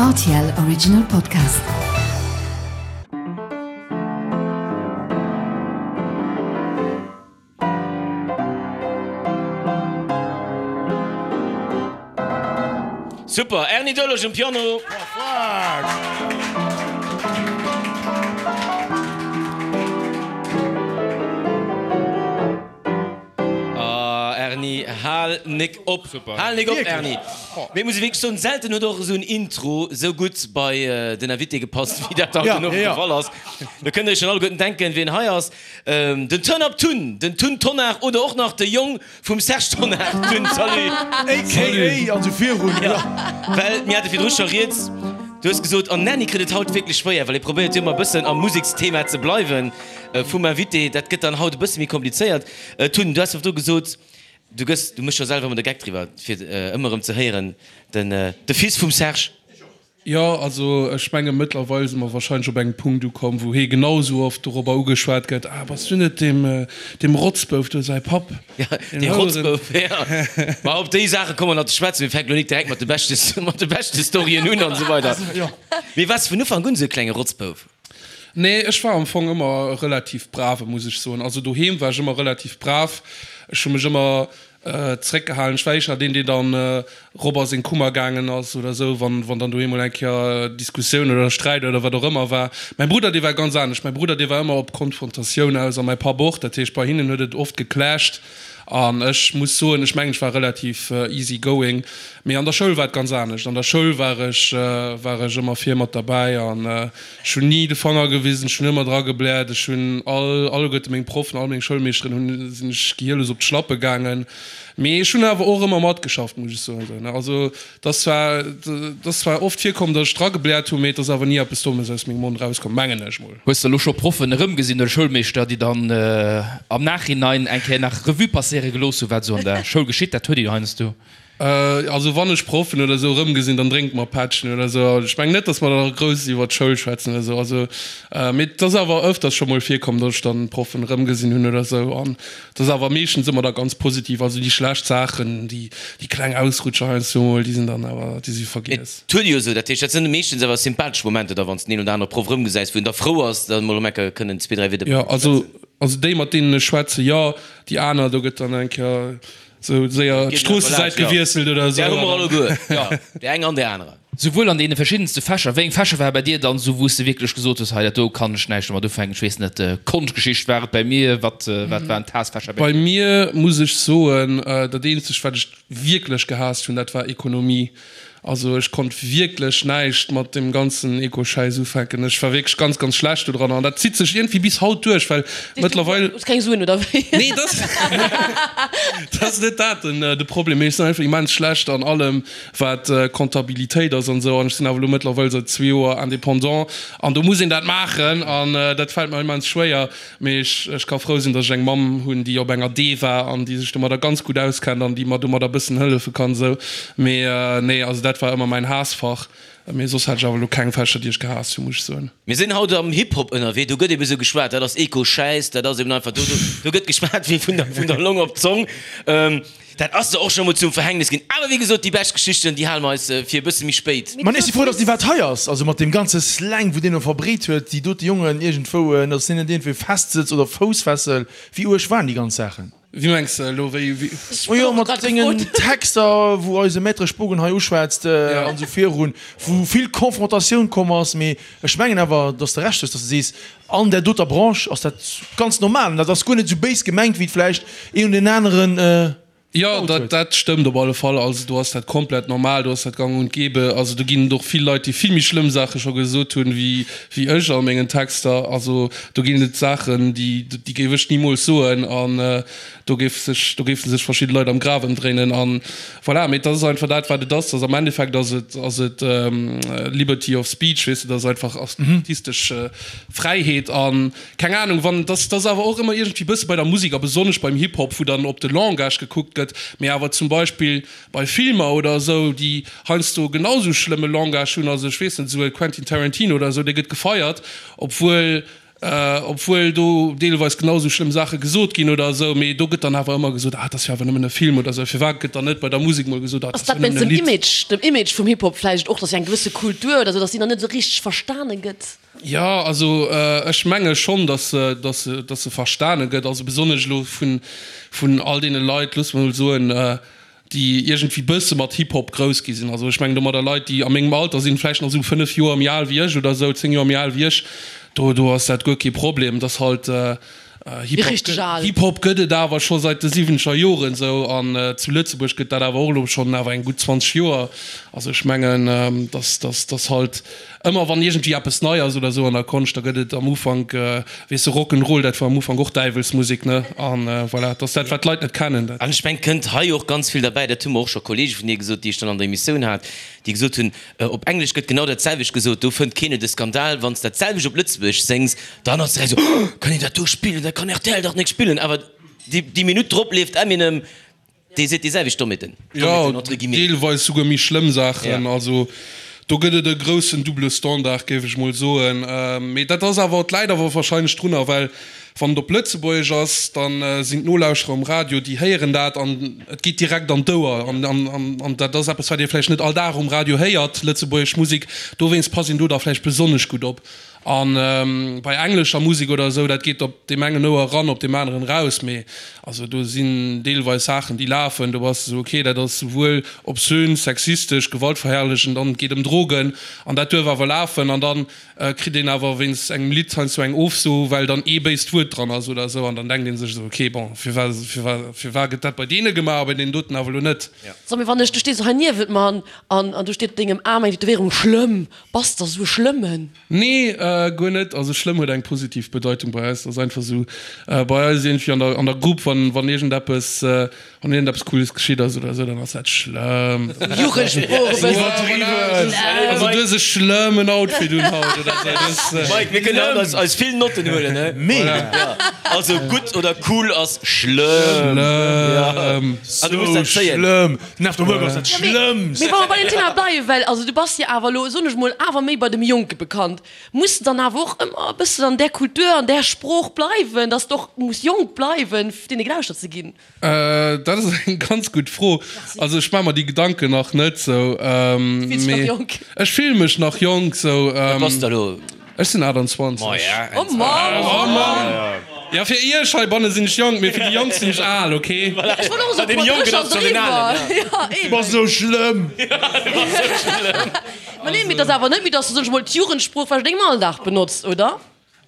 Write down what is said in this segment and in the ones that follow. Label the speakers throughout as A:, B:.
A: Rtl Original Podcast.
B: Super, Erny Doerlech um Piano. Ah Erny, hal nik op, hal nik op Erny. Mee muss ech wierklech soen, selten huet och esou en Intro esou gutt bei den Invité gepasst, wéi dat haut den Owend de Fall ass. Do kënnt der iech schon alleguerten denken, wien hei ass. Den Turn Up Tun, den Tun Tonnar oder och nach de Jong vum Serge Tonnar. Tun, salut!
C: AKA an esou virun,
B: jo. Well mir hate virdru scho rieds, du hues gesot, an Nanny kritt et haut wierklech schwéier, well e probéiert jo ëmmer e bëssen am Museksthema ze bleiwen vum Invité. Dat gëtt dann haut e bësse méi komplizéiert. Tun, du has virdru gesot, du gëss, du méchs jo selwer ëmmer de Geck driwwer, fir ëmmer erëm ze héieren, den, de Fils vum Serge.
D: Jo, also ech menge mëttlerweil si mer wahrscheinlech op engem Punkt ukomm, wou hee genau esou oft dorobber ugeschwat gëtt, Ah, bass du net deem, deem Rotzbouf do säi Papp?
B: Ja, dee Rotzbouf, ja. Ma op déi Saache komme mer nach ze schwätzen. Mir fänken elo nik direkt mat de beschte, mat de beschte Storyen un an esou weider. Mee waars de vun Ufank un esou e klenge Rotzbouf?
D: Nee, ech war am Fong ëmmer e relativ brave, muss ech soen. Also doheem war ech ëmmer relativ brav. Ech hu mech ëmmer Zeréckgehalen. Ech war éischter deen, deen dann rop a seng Kummer gaangen ass oder esou, wann, wann dann doheem mol eng Kéier Diskussioun oder Sträit oder wat och ëmmer war. Mäi Brudder, dee war ganz anescht. Mäi Brudder, dee war ëmmer op Konfrontatioun aus a mäi Papp och. Dat heescht, bei hinnen huet et oft geclasht. An ech muss soen, ech mengen, ech war relativ easy going. Mee an der Schoul war et ganz anescht. An der Schoul war ech, war ech ëmmer vir mat derbäi an Ech hunn ni de Fanger gewisen, ech hunn ëmmer dra gebläert. Ech hunn all, alleguerte meng Proffen, all meng Schoulmeeschteren hunn, sinn ech gehierlos op d'Schlappe gaangen. Mee ech hunn awer och ëmmer matgeschafft, muss ech soen. Also et ass zwar, et ass zwar oft virkomm, datt ech dra gebläert hunn, mee et ass awer ni eppes Dommes aus mengem Mond erauskomm, mengen ech mol.
E: Hues de elo scho Proffen erëmgesinn oder Schoulmeeschter, déi dann am Nachhinein eng Kéier nach Revue passéiere gelooss hunn, wat esou an der Schoul geschitt? Dat huet ee jo heiansdo.
D: Also wann ech Proffen oder esou erëmgesinn, dann drénke mer Pättchen oder esou. Ech mengen net, datt mer da grouss iwwer d'Schoul schwätzen oder esou. Also, mee et ass awer ëfters scho mol virkomm, datt ech dann Proffen erëmgesinn hunn oder esou. An et ass awer meeschtens ëmmer da ganz positiv. Also déi schlecht Saachen, déi, déi kleng Ausrutscher heiansdo mol, déi sinn dann awer, déi si vergiess.
B: Et huet ee jo esou, dat heescht, dat sinn meeschtens awer sympathesch Momenter da, wann s de den een oder anere Proff erëmgesäis, wou een da frou ass, da mol erëm eng Kéier kënnen zwee, dräi Wieder
D: mat him ze schwätzen. Jo, also déi, mat deenen ech schwätzen, jo. Déi aner, do gëtt dann eng Kéier Sou séier d'Stroossesäit gewiesselt oder esou.
B: Där hu mer alleguer, jo, déi eng an déi aner.
E: Souwuel an deene verschiddenste Fächer. Wéi eng Fächer ware bei dir dann esou, wou s de wierklech gesot hues, hei dat do kann ech näischt domat ufänken, ech weess net, Konschtgeschicht war et bei mir, wat wat waren d'Haassfächer
D: bei dir? Bei mir muss ech soen, dat eenzegt wat ech wierklech gehaasst hunn, dat war Ekonomie. Also ech konnt wierklech näischt mat deem ganzen Eco-Schäiss ufänken. Ech war wierklech ganz, ganz schlecht do dran an dat zitt sech iergendwéi bis haut duerch, well mëttlerweil.
F: Hues keng Suen oder wéi?
D: Nee, dat ass net dat den de Problem, mee ech sinn einfach immens schlecht an allem wat Comptabilitéit ass an esou an ech sinn awer elo mëttlerweil säit zwee Joer Indépendant an do muss een dat maachen an dat fält mer immens schwéier. Mee ech, ech ka frou sinn, datt ech eng Mamm hunn, déi op enger D war an déi sech domadder ganz gutt auskennt an déi mer domadder e bëssen hëllefe kann esou. Mee nee, also dat war ëmmer mäin Haassfach. Mee soss hat ech awer elo keng Fächer, déi ech gehaasst hunn, muss ech soen.
B: Mir sinn haut am Hip-Hop ënnerwee, do gëtt eben esou geschwat, dat ass Eco-Schäiss, dat ass eben einfach, do, do, do gëtt geschwat wéi vun der, vun der Long op d'Zong. Dat ass der och scho mol zum Verhängnis ginn. Awer wéi gesot, déi bescht Geschichten, déi hale mer eis fir e bësse méi spéit.
C: Mä ech si frou, dass déi wat hei ass. Also mat deem ganze Slang, wou deen elo verbreet huet, déi dote Jongen iergendwou, dass deen net iergendwéi festsëtzt oder Foussfessel. Wéi uerg waren déi ganz Saachen?
D: Wéi mengs de elo? Wéi, wéi?
C: Majo, mat sengen Texter, wou eise Maître Spogen hei uschwätzt an esou virun, wou vill Confrontatioun komm ass. Mee ech mengen awer, dass de Recht hues, dass de sees, An där doter Branche ass dat ganz normal an dat ass guer net esou béis gemengt, wéi et vläicht een oder deen aneren
D: Jo, dat, dat stëmmt op alle Fall. Also do ass dat komplett normal, do ass dat gang und gäbe. Also do ginn et och vill Leit, déi vill méi schlëmm Saache scho gesot hunn, wéi, wéi ech a mengen Texter. Also do ginn et Saachen, déi, déi géif ech nimools soen an do géif sech, do géife sech verschidde Leit am Graf ëmdréinen an voilà. Mee et ass einfach dat, wat et ass. Dass am Endeffekt ass et, ass et Liberty of Speech, weess de, dat ass einfach artistesch Fräiheet an keng Ahnung wann, dass dass awer och ëmmer iergendwéi bësse bei der Musek a besonnesch beim Hip Hop, wou dann op de Langage gekuckt gëtt, mee awer zum Beispill bei Filmer oder esou, déi heiansdo genau esou schlëmme Langage hunn, also ech weess net, esou e Quentin Tarantino oder esou, dee gëtt gefeiert, obwuel. Obwuel do deelweis genau esou schlëmm Saache gesot ginn oder esou, mee do gëtt dann awer ëmmer gesot, ah, et ass jo awer nëmmen e Film oder esou. Firwat gëtt dann net bei der Musek mol gesot, ah, et
F: Ass
D: ass jo
F: dat wéinst
D: nëmmen e
F: dem
D: Lidd?
F: Image, dem Image vum Hip-Hop vläicht och, dass eng gewësse Kultur oder esou, dass déi nach net esou richteg verstane gëtt?
D: Jo, also ech menge schonn, dass se, dass se, dass se verstane gëtt, also besonnesch elo vun, vun all deene Leit, loosse mer mol soen, déi iergendwéi bësse mat Hip-Hop grouss gi sinn. Also ech mengen domadder Leit, déi a mengem Alter sinn, vläicht nach esou 5 Joer méi al wéi ech oder esou, 10 Joer méi al wéi ech, do do ass dat guer kee Problem. Et ass halt, Hip-Hop Hip-Hop gëtt et awer scho seit de siwwenzeger Joren esou an zu Lëtzebuerg gëtt dat awer och elo schonn awer eng gutt 20 Joer. Also ech mengen, dass dass dass halt Ëmmer wann iergendwéi eppes nei ass oder esou an der Konscht, da gëtt et am Ufank, weess de, Rock 'n' Roll, dat war am Ufank och Däiwelsmusek, ne? An voilà, et ass dat, wat d'Leit net kennen, dat.
B: An ech mengen, et kënnt hei och ganz vill derbäi, dat hu mer och scho Kollege vun dir gesot, déi ech dann an der Emissioun hat, déi gesot hunn, op Englesch gëtt genau dat selwecht gesot, do fënnt keen et e Skandal. Wann s dat selwecht op Lëtzebuergesch séngs, dann ass direkt esou, Oh, kann een dat do spillen, dat kann rtl dach nek spillen. Awer déi Minutt drop leeft Eminem. Dee seet déi selwecht Dommheeten,
D: Jo, entre guillemets. deelweis souguer méi schlëmm Saachen. Also do gëtt et e groussen double Standard, géif ech mol soen. Mee dat ass awer, et läit awer warscheinlech drunner, well wann et op Lëtzebuergesch ass, da sinn d'Nolauschterer um Radio, déi héieren dat an et geet direkt an d'Ouer. An dat ass eppes, wat ee vläicht net all Dag um Radio héiert, lëtzebuergesch Musek. Dowéinst passt een do da vläicht besonnesch gutt op. A bei englescher Musek oder esou, dat geet op deem engen Ouer eran, op deem aneren eraus. Mee also do sinn deelweis Saachen, déi lafen, do bass de esou, okay, dat ass souwuel obszön, sexistesch, gewaltverherrlechend an et geet ëm Drogen an dat duerf awer lafen. An da kritt een awer wéinst engem Lidd heiansdo eng Ofso, well dann ee béist Wuert dran ass oder esou. An dann denkt ee sech esou, okay, bon, firwat, firwat, firwat gëtt dat bei deene gemaach a bei deenen doten awer elo net?
F: So, mee wann ech, du stees hei niewent mer an an do steet op dengem Aarm eng Tätowéierung, schlëmm. Bass der sou e Schlëmmen?
D: Nee, guer net. Also schlëmm huet eng positiv Bedeitung bei eis. Et ass einfach sou bei eis iergendwéi an der an der Grupp, wann wann iergendeppes wann iergendeppes Cooles geschitt ass oder sou, dann ass dat schlëmm.
F: Jugendsprooch e bëssen.
D: Iwwerdriwwen. Also du hues e schlëmmen Outfit un haut oder sou. Du hues.
B: Mike, mir kënnen haut eis eis vill Notten huelen, he?
C: Mega.
B: Also gutt oder cool ass schlëmm.
D: Schlëmm.
B: An du muss dat
C: Sou
B: zéien.
C: schlëmm. Den After Work ass dat Schlëmmst.
F: Mee wa mer bei dem Thema bleiwen, well also du bass jo awer elo, soen ech mol, awer méi bei dem Jonke bekannt, muss de dann awer och ëmmer e bëssen an där Kultur, an där Sprooch bleiwen, dass de och muss jonk bleiwen, fir deene gelauschtert ze ginn?
D: Dat ass eng ganz gutt Fro. Also ech maache mer déi Gedanken nach net sou.
F: Du fills dech nach jonk?
D: Ech fille mech nach jonk sou.
B: Wat bass de elo?
D: Ech sinn 28.
B: Maja.
F: Oh Mann!
D: Oh Mann! Jo, fir iech heibanne sinn ech jonk, mee fir déi Jonk sinn ech al, ok?
F: Ech wollt och esou puer Drécher driwwer. Ja,
C: Du bass esou schlëmm!
F: Ma nee, mee et ass awer net méi, dass du, soen ech mol, d'Jugendsprooch vläicht an dengem Alldag benotzt, oder?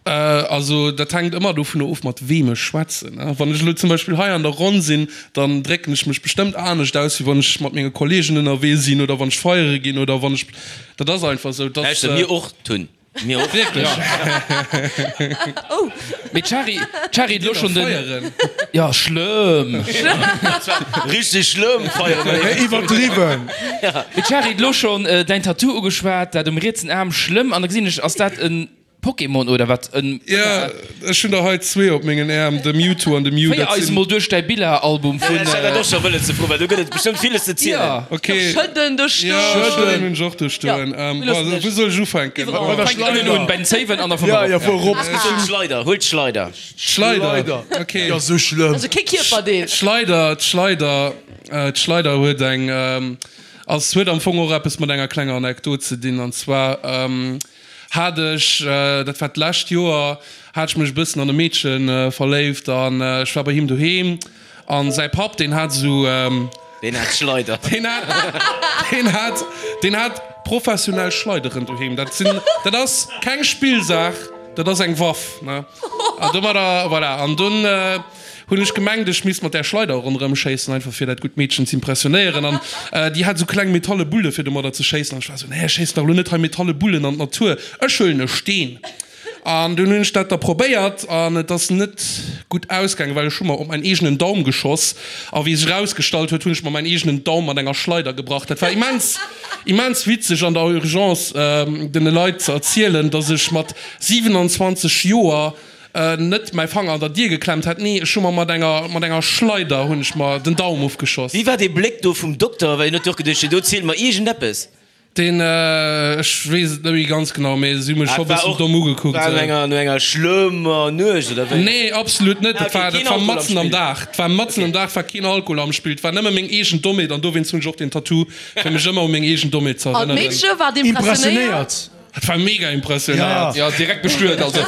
D: Also dat hänkt ëmmer dovunner of, mat weem ech schwätzen. Wann ech elo zum Beispill hei an der Ronn sinn, dann drécken ech mech bestëmmt anescht aus, wéi wann ech mat menge Kolleegen ënnerwee sinn oder wann ech feiere ginn oder wann ech, dat ass einfach esou.
B: Lauschter, mir och tun. Mir och.
D: Wierklech?
F: Oh.
E: Mee d'Shari, d'Shari huet elo schonn den.
D: Feieren.
E: Ja, schlëmm.
B: Richteg schlëmm feieren.
C: Iwwerdriwwen.
E: Mee d'Shari huet elo schonn däin Tattoo ugeschwat, dat um rietsen Aarm, schlëmm. An da gesinn ech, ass dat en Pokémon oder wat? En.
D: Jo, ech hunn der hei zwee op mengen Äerm, de Mewtwo an de Mew.
E: Féier eis emol duerch däi Biller-Album vun.
B: Ech hat dat och scho wëllen ze froen, well do gëtt et bestëmmt villes ze zielen.
E: Ja.
D: Ok.
F: Schëdden do stoen.
D: Ja, Schëdden hunn ech och do stoen. Bon, wou soll ech ufänken?
C: Bei der
E: Fänk ënnen un,
C: Schleider.
E: bei den Zéiwen an da vun
C: Ja,
E: erop.
C: ja, vu erop.
B: D'Schleider, huel d'Schleider.
D: D'Schleider, ok.
C: Ja, sou schlëmm.
F: Also kee Kierperdeel.
D: D'Schleider, d'Schleider, d'Schleider huet eng, ass, huet am Fong och eppes mat enger klenger Anekdot ze dinn. An zwar hat ech, dat war d'lescht Joer, hat ech mech e bëssen an e Meedche verléift an ech war bei him doheem an säi Papp, deen hat esou,
B: Deen hat Schleider.
D: Deen hat, deen hat, deen hat professionell Schleideren doheem. Dat sinn, dat ass keng Spillsaach, dat ass eng Waff, ne? An domadder, voilà. An dunn hunn ech gemengt, ech misst mat där Schleider ronderëm schéissen, einfach fir dat gutt Meedchen z'impressionéieren. An déi hat esou kleng metalle Bulle fir domadder ze schéissen. An ech war esou, nee, ech schéissen dach elo net hei metalle Bullen an d'Natur, ech huelen e Steen. An dunn hunn ech dat da probéiert an et ass net gutt ausgaangen, well ech hu mer op mäin eegenen Daum geschoss. A wéi sech erausgestallt huet, hunn ech mer mäin eegenen Daum mat enger Schleider gebrach. Dat war immens, immens witzeg an der Urgence den Leit ze erzielen, dass ech mat 27 Joer net mäi Fanger an der Dier geklemmt hätt. Nee, ech hu mer mat enger, mat enger Schleider hunn ech mer den Daum ofgeschoss.
B: Wéi war dee Bléck do vum Dokter? Well hien huet jo och geduecht, do zielt mer iergendeppes.
D: Deen, ech weess et net méi ganz genau, mee si hu mech scho bëssen domm ugekuckt.
B: War no enger, no enger schlëmmer Nuecht, oder wéi?
D: Nee, absolut net. Dat war, dat war matzen am Dag. Et war matzen am Dag, war keen Alkohol am Spill. Et war nëmme meng eegen Dommheet an dowéinst hunn ech och den Tattoo, fir mech ëmmer u meng eegen Dommheet ze
F: An
D: erënneren.
F: d'Meedche war impressionéiert?
D: Dat war mega impressionéiert.
E: Jo, direkt bestuet also.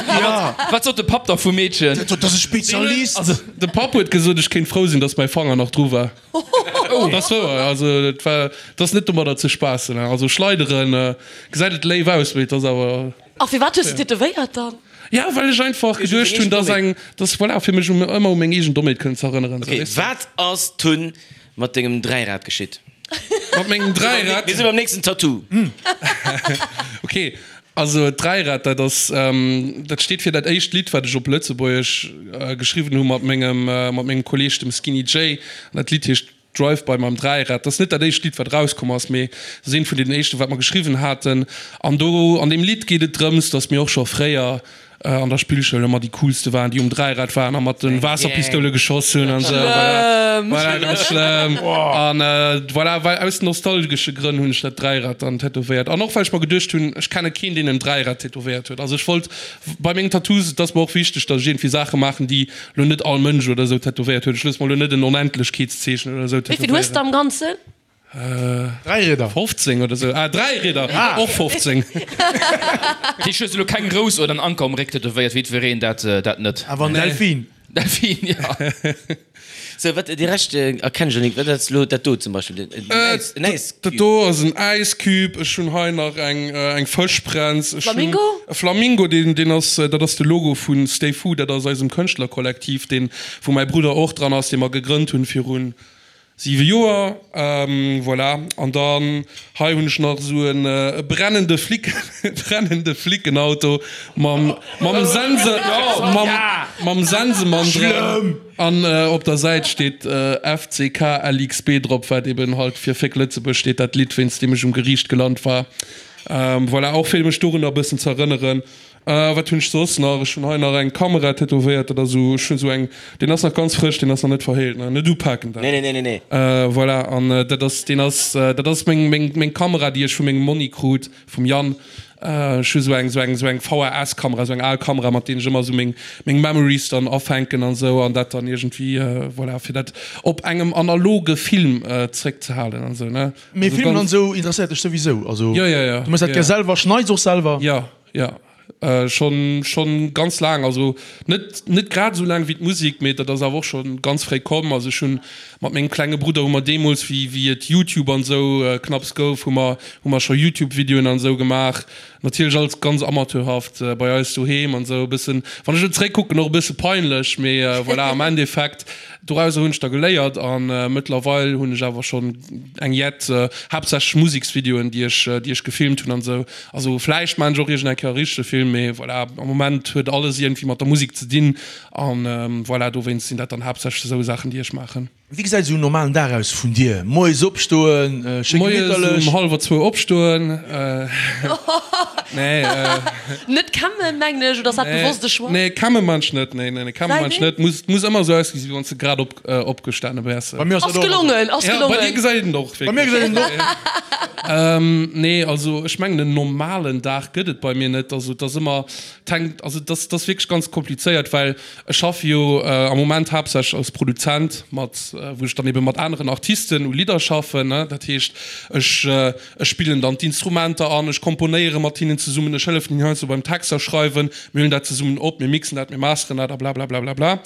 E: Wat sot de Papp da vum Meedchen?
C: Dat ass e Spezialist.
D: De Papp huet gesot, ech kéint frou sinn, datt mäi Fanger nach dru war. Dat ass wouer, also et war, et ass net domadder ze spaassen. Also schleideren gesäit et léif aus, mee et ass awer.
F: A firwat hues de tätowéiert dann?
D: Ja, well ech einfach geduecht hunn, dass eng, dass, voilà, fir mech ëmmer u meng eegen Dommheet kënnen ze erënneren.
B: Ok, wat ass dunn mat dengem Dräirad geschitt?
D: Mat mengem Dräirad?
B: Mir si beim nächsten Tattoo.
D: Ok, Also d'Dräirad, dat ass, dat steet fir dat éischt Lidd, wat ech op Lëtzebuergesch geschriwwen hu mat mengem, mat mengem Kolleeg, dem Skinny Jay. An dat Lidd heescht Drive By mam Dräirad. Dat ass net dat éischt Lidd, wat erauskomm ass, mee et ass eent vun deenen éischten, wat mer geschriwwen haten. An do an deem Lidd geet et drëms, datt mir och scho fréier an der Spillschoul ëmmer déi coolste waren, déi um Dräirad waren a mat de Waasserpistoule geschoss hunn an esou. Voilà, voilà, ganz schlëmm. An voilà, well aus nostalgesche Grënn hunn ech dat Dräirad dann tätowéiert. An och well ech mer geduecht hunn, ech kenne keen, deen en Dräirad tätowéiert huet. Also ech wollt bei mengen Tattoos, et ass mer och wichteg, datt ech iergendwéi Saache maachen, déi lo net all Mënsch oder esou tätowéiert huet. Ech loosse mer lo net en Onendlechkeetszeechen oder esou
F: Wéi vill hues
D: tätowéieren.
F: de am Ganzen?
C: Dräirieder.
D: 15 oder sou. Ah, Dräirieder! Och 15.
E: Dat heescht, hues de lo keng Rous oder en Anker um Réck tätowéiert, wéi jiddwereen dat dat net?
C: Awer en Delfin.
E: Delfin, ja.
B: Sou, wat, déi Rescht erkennen ech elo net. Wat ass lo dat do zum Beispill? En Äis, en Äiscube?
D: Dat do ass en Äiscube. Ech hunn hei nach eng, eng Fëschbrenz. Ech hunn
F: Flamingo?
D: e Flamingo, deen, deen ass, dat ass de Logo vu Stay Food. Dat ass eisem Kënschtlerkollektiv, deen, wou mäi Brudder och dran ass, dee mer gegrënnt hunn virun 7 Joer, voilà. An dann hei hunn ech nach esou en brennende Flic, brennende Flickenauto mam, mam Sense, mam, mam Sensemann dran. An op der Säit steet FCKLXB drop, wat eben halt fir Féck Lëtzebuerg steet, dat Lidd wéinst deem ech um Geriicht gelant war. Voilà, och fir mech dorunner e bëssen ze erënneren. Wat hunn ech soss nach? Ech hunn hei nach eng Kamera tätowéiert. Dat ass esou, ech hunn esou eng, deen ass nach ganz frësch, deen ass nach net verheelt, ne? Net upaken dat.
B: Nee, nee, nee, nee.
D: Voilà, an dat ass, deen ass, dat ass meng, meng, meng Kamera, déi ech vu mengem Monni krut, vum Yann. Ech hu esou eng, esou eng, esou eng VHS-Kamera, esou eng al Kamera, mat deenen ech ëmmer esou meng, meng Memories dann afänken an esou an dat dann iergendwéi, voilà, fir dat op engem analoge Film zréckzehalen an esou, ne?
C: Mee Filmen an esou interesséiert dech souwisou? Also, du méchs dat gär selwer, schneits och selwer?
D: Jo. Jo, schonn schonn ganz laang, also net net grad esou laang wéi d'Musek, mee dat ass awer och schonn ganz fréi komm. Also ech hunn mat mengem klenge Brudder hu mer deemools wéi wéi et Youtube an esou knapps gouf, hu mer hu mer scho Youtube Videoen an esou gemaach. Natierlech alles ganz amateurhaft bei eis doheem an esou e bëssen, wann ech elo zeréckkucken, och e bësse peinlech, mee voilà, am Endeffekt dorauser hunn ech da geléiert an mëttlerweil hunn ech awer schonn eng jett haaptsächlech Museksvideoen déi ech déi ech gefilmt hunn an esou. Also vläicht maan ech och iergend eng Kéier e richtege Film, mee voilà, am Moment huet alles iergendwéi mat der Musek ze dinn an voilà, dowéinst sinn dat dann haaptsächlech esou Saachen déi ech maachen.
C: Wéi gesäit esou en normalen Dag aus vun dir? Moies opstoen, schéi
D: Moies
C: gemitterlech?
D: um hallwer zwou opstoen, nee.
F: Net kämmen mengen ech, oder ass dat bewosst e Choix?
D: Nee, kämme maan ech net, nee, nee, kämme maan ech net. Muss, muss ëmmer esou ausgesi wéi wann s de grad op, opgestane wäers.
C: Bei mir ass
F: dat och. Ass gelongen, ass
D: gelongen. Ja, bei dir gesäit et och
C: wierklech. Bei mir gesäit et och.
D: Nee, also ech mengen en normalen Dag gëtt et bei mir net. Also et ass ëmmer, et hänkt, also et ass, et ass wierklech ganz komplizéiert, well ech schaffe jo am Moment haaptsächlech als Produzent mat, wou ech dann ebe mat aneren Artisten u Lidder schaffen, ne. Dat heescht, ech, ech spillen dann d'Instrumenter an, ech komponéiere mat hinnen zesummen, ech hëllefen hinnen heiansdo beim Texter schreiwen, mir huelen dat zesummen op, mir mixen dat, mir masteren dat a blablablablabla.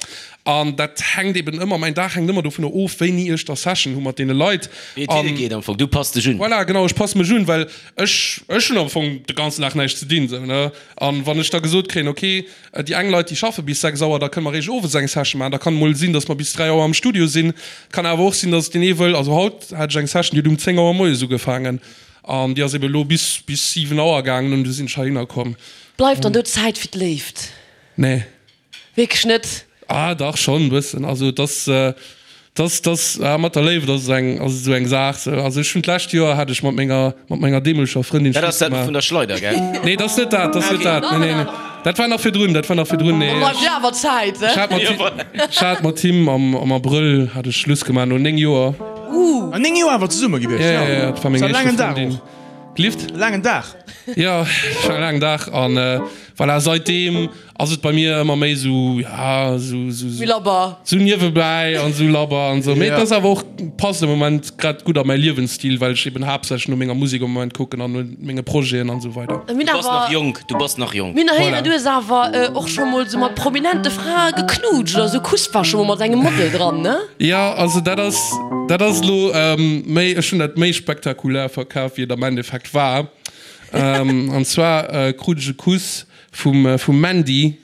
D: An dat hänkt eben ëmmer, mäin Dag hänkt ëmmer dovunner of, wéini ech da Session hu mat deene Leit.
B: Wéi et hinne geet am Fong, du pass dech un.
D: Voilà, genau, ech passe mech un, well ech, ech hunn am Fong de ganzen Dag näischt ze dinn, sou, ne. An wann ech da gesot kréien, ok, déi eng Leit, déi schaffe bis 6 Auer, da kënne mer eréischt owes eng Session maachen, da kann et mol sinn, datt mer bis 3 Auer am Studio sinn. Et kann awer och sinn, datt deen ee wëll, also haut hat ech eng Session, déi huet um 10 Auer moies ugefaangen an déi ass eben elo bis, bis 7 Auer gaangen an du sinn ech heihinner komm.
F: Bleift dann do Zäit fir d'Léift?
D: Nee.
F: Wierklech net?
D: Ah dach, schonn e bëssen. Also et ass, et ass, et ass, ah mat der Léift ass et eng, ass et esou eng Saach sou. Also ech hunn d'lescht Joer hat ech mat menger, mat menger deemoleger Frëndin
B: Dat ass
D: Schluss
B: dat vun
D: gemaach.
B: der Schleider, gell?
D: Nee, dat ass net dat, dat ass net dat. Nee, nee, nee. Dat war nach virdrun, dat war nach virdrun. Nee,
F: Da bleift jo awer Zäit,
D: ech hat mat him, ech hat mat him am, am Abrëll hat ech Schluss gemaach, no 9 Joer.
C: Ah, 9 Joer awer zesumme gewiescht,
D: Ja, ja, ja, dat war meng
C: Ass e
D: éischte
C: laangen Dag
D: Frëndin.
C: och.
D: Lift?
C: Laangen Dag.
D: Jo, et war e laangen Dag an voilà, seitdeem ass et bei mir ëmmer méi sou, ja, sou, sou,
F: Méi labber.
D: sou niewebäi an sou labber an sou. Mee et ass awer och, passt am Moment grad gutt a mäi Liewensstil, well ech eben haaptsächlech no menger Musek am Moment kucken an no menge Projeten an sou weider.
B: Du bass nach jonk, du bass nach jonk.
F: Mir hunn héieren, du hues awer och scho mol sou mat prominente Frae geknutscht oder sou Kuss war scho mol mat engem Model dran, ne?
D: Jo, also dat ass, dat ass elo méi, ech hunn dat méi spektakulär verkaf, wéi et am Endeffekt war. An zwar krut ech e Kuss vum vum Mandy,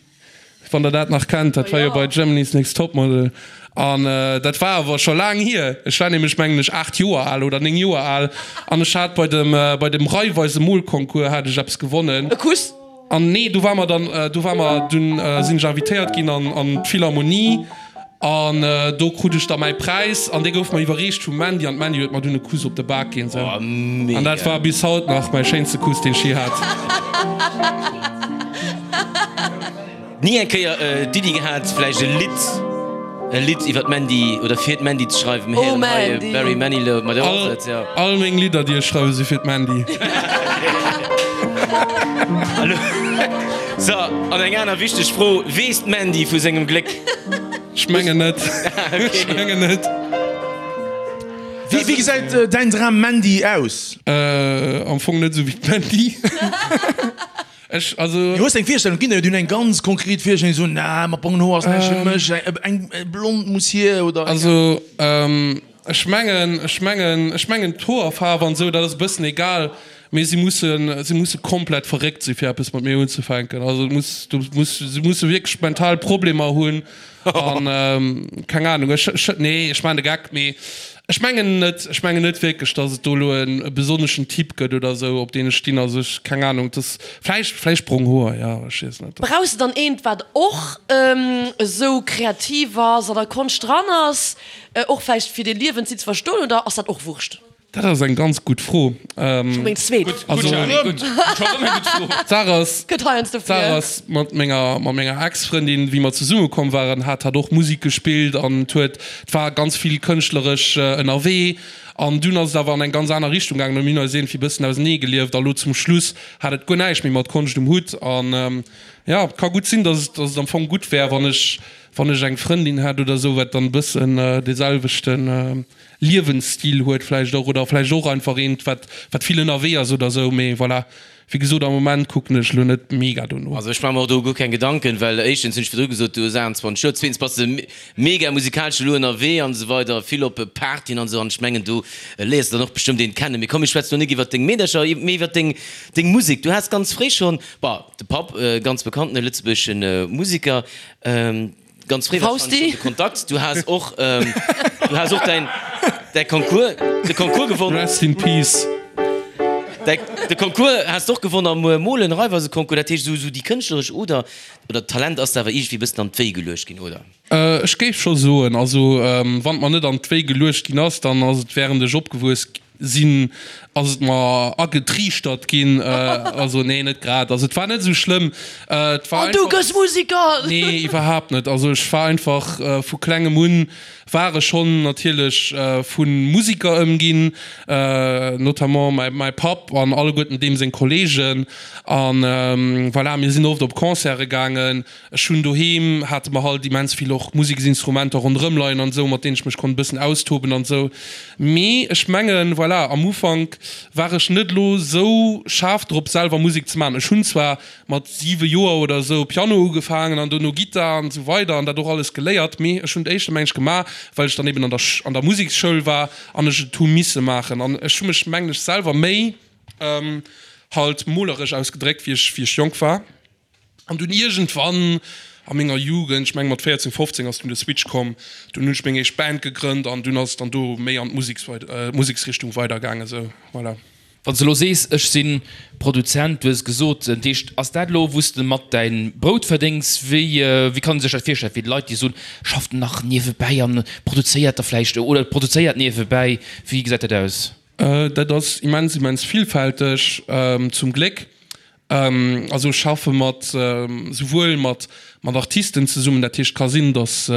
D: wann der dat nach kennt, dat war jo bei Germany's Next Topmodel an dat war awer scho laang hier. Ech war nämlech mengen ech 8 Joer al oder 9 Joer al an ech hat bei dem bei dem Raiffeisen Molconcours hat ech eppes gewonnen.
F: E Kuss?
D: An nee, do war mer dann do war mer dunn sinn ech invitéiert ginn an an d'Philharmonie An do krut ech da mäi Präis an dee gouf mer iwwerreecht vum Mandy an d'Mandy huet mer dunn e Kuss op de Bak ginn. Sou. An dat war bis haut nach mäi schéinste Kuss, deen ech je hat.
B: Ni eng Kéier d'Iddi gehat, vläicht e Lidd, e Lidd iwwer d'Mandy oder fir d'Mandy ze schreiwen? Mir héieren hei Barry Manilow, ma do ass et, jo.
D: All meng Lidder, déi ech schreiwen, si fir d'Mandy.
B: So, an eng aner wichteg Fro, Weess d'Mandy vu sengem Gléck?
D: Ech mengen net. Ech mengen net.
C: Wéi wéi gesäit däin Dram Mandy aus?
D: Am Fong net esou wéi d'Mandy. Ech, also.
C: Du hues eng Virstellung, et ginn der jo, déi hunn eng ganz konkret Virstellung, déi soen, na, mat brongen Hoer ass näischt fir mech, eng blond muss hier oder.
D: Also, Ech mengen, ech mengen, ech mengen d'Hoerfaarf an esou, dat ass e bëssen egal, mee si mussen, si musse komplett verréckt si fir eppes mat mir unzefänken. Also et muss, du muss, si musse wierklech mental Problemer hunn an keng Ahnung. Ech, ech, nee, ech maachen de Geck, mee ech mengen net, ech mengen net wierklech, datt et do elo e besonneschen Typ gëtt oder esou, op deen ech stinn. Also ech, keng Ahnung, et ass vläicht, vläicht brong Hoer, jo, ech weess net.
F: Brauchs de dann eent, wat och esou kreativ ass, an der Konscht dran ass? Och vläicht fir dee Liewensstil ze verstoen, oder ass dat och Wurscht?
D: Dat ass eng ganz gutt Fro.
F: Scho meng zweet.
D: D'Saach ass, d'Saach ass, mat menger, mat menger Ex-Frëndin, wéi mer zesumme komm waren, hat hatt och Musek gespillt an et huet, et war ganz vill kënschtleresch ënnerwee. An dunn ass et awer an eng ganz aner Richtung gaangen a mir hunn eis iergendwéi e bëssen ausenee gelieft a lo zum Schluss hat et guer näischt méi mat Konscht um Hutt. An jo, et ka gutt sinn, datt et, datt et am Fong gutt wär, wann ech, Wann ech eng Frëndin hätt oder sou, wat dann e bëssen dee selwechte Liewensstil huet vläicht och, oder vläicht och einfach eent, wat wat vill ënnerwee ass oder sou. Mee voilà, wéi gesot, am Moment kucken ech elo net mega dono.
B: Also ech maache mer och do guer keng Gedanken, well éischtens hunn ech virdru gesot, du hues 28 Joer, zweetens bass de mega musikalesch elo ënnerwee an esou weider, vill op Partyen an esou, an ech mengen do léiers de dann och bestëmmt een kennen. Mee komm mir schwätzen elo nik iwwert deng Meedercher, mee iwwert deng deng Musek. Du has ganz fréi schonn, bon, de Papp, ganz bekannten lëtzebuergesche Musiker, Ganz fréi wahrscheinlech schon de Kontakt. Du has och, du has och däin, däi Concours, de Concours gewonnen.
D: Rest in peace.
B: Däi, de Concours has de och gewonnen am Molen, Raiffeiseconcours. Dat heescht, esou, esou déi kënschtleresch Oder, oder d'Talent ass der awer iergendwéi e bëssen an d'Wéi geluecht ginn, oder?
D: Ech géif scho soen, also wann et mer net an d'Wéi geluecht ginn ass, dann ass et während ech opgewuess Sinn, ass et mer agetriichtert ginn. Also nee, net grad. Also et war net esou schlëmm. Et war
F: An du
D: einfach.
F: gëss Musiker!
D: Nee, iwwerhaapt net. Also ech war einfach vu klengem un war ech schonn natierlech vu Musiker ëmginn, notamment mäi mäi Papp an alleguerten deem seng Kolleegen. An voilà, mir sinn oft op Concerte gaangen. Ech hunn doheem, hate mer halt immens vill och Museksinstrumenter ronderëm leien an esou, mat deenen ech mech konnt e bëssen austoben an esou. Mee ech mengen, voilà, am Ufank war ech net elo esou schaarf drop, selwer Musek ze maachen. Ech hunn zwar mat 7 Joer oder esou Piano ugefaangen an dono Gittar an esou weider an dat och alles geléiert, mee ech hunn d'éischter meng ech gemaach, well ech dann eben an der an der Museksschoul war an ech et hu misse maachen. An ech hu mech, mengen ech, selwer méi halt moleresch ausgedréckt, wéi ech wéi ech jonk war. An dunn iergendwann a menger Jugend, ech menge mat 14, 15 ass dunn de Switch komm, dunn hunn ech meng éischt Band gegrënnt an dunn ass et dann do méi an d'Museksrichtung weidergaangen, esou, voilà.
E: Wann s de elo sees, ech si Produzent, du hues et gesot, dat heescht, ass dat elo wou s de mat däin Brout verdéngs? Wéi, wéi kann ee sech dat virstellen fir déi Leit, déi soen, schafft nach niewebäi an produzéiert da vläicht oder produzéiert niewebäi, wéi gesäit dat aus?
D: Dat ass immens, immens villfälteg, zum Gléck. Also ech schaffe mat souwuel mat mat Artisten zesummen, dat heescht ka sinn, datt.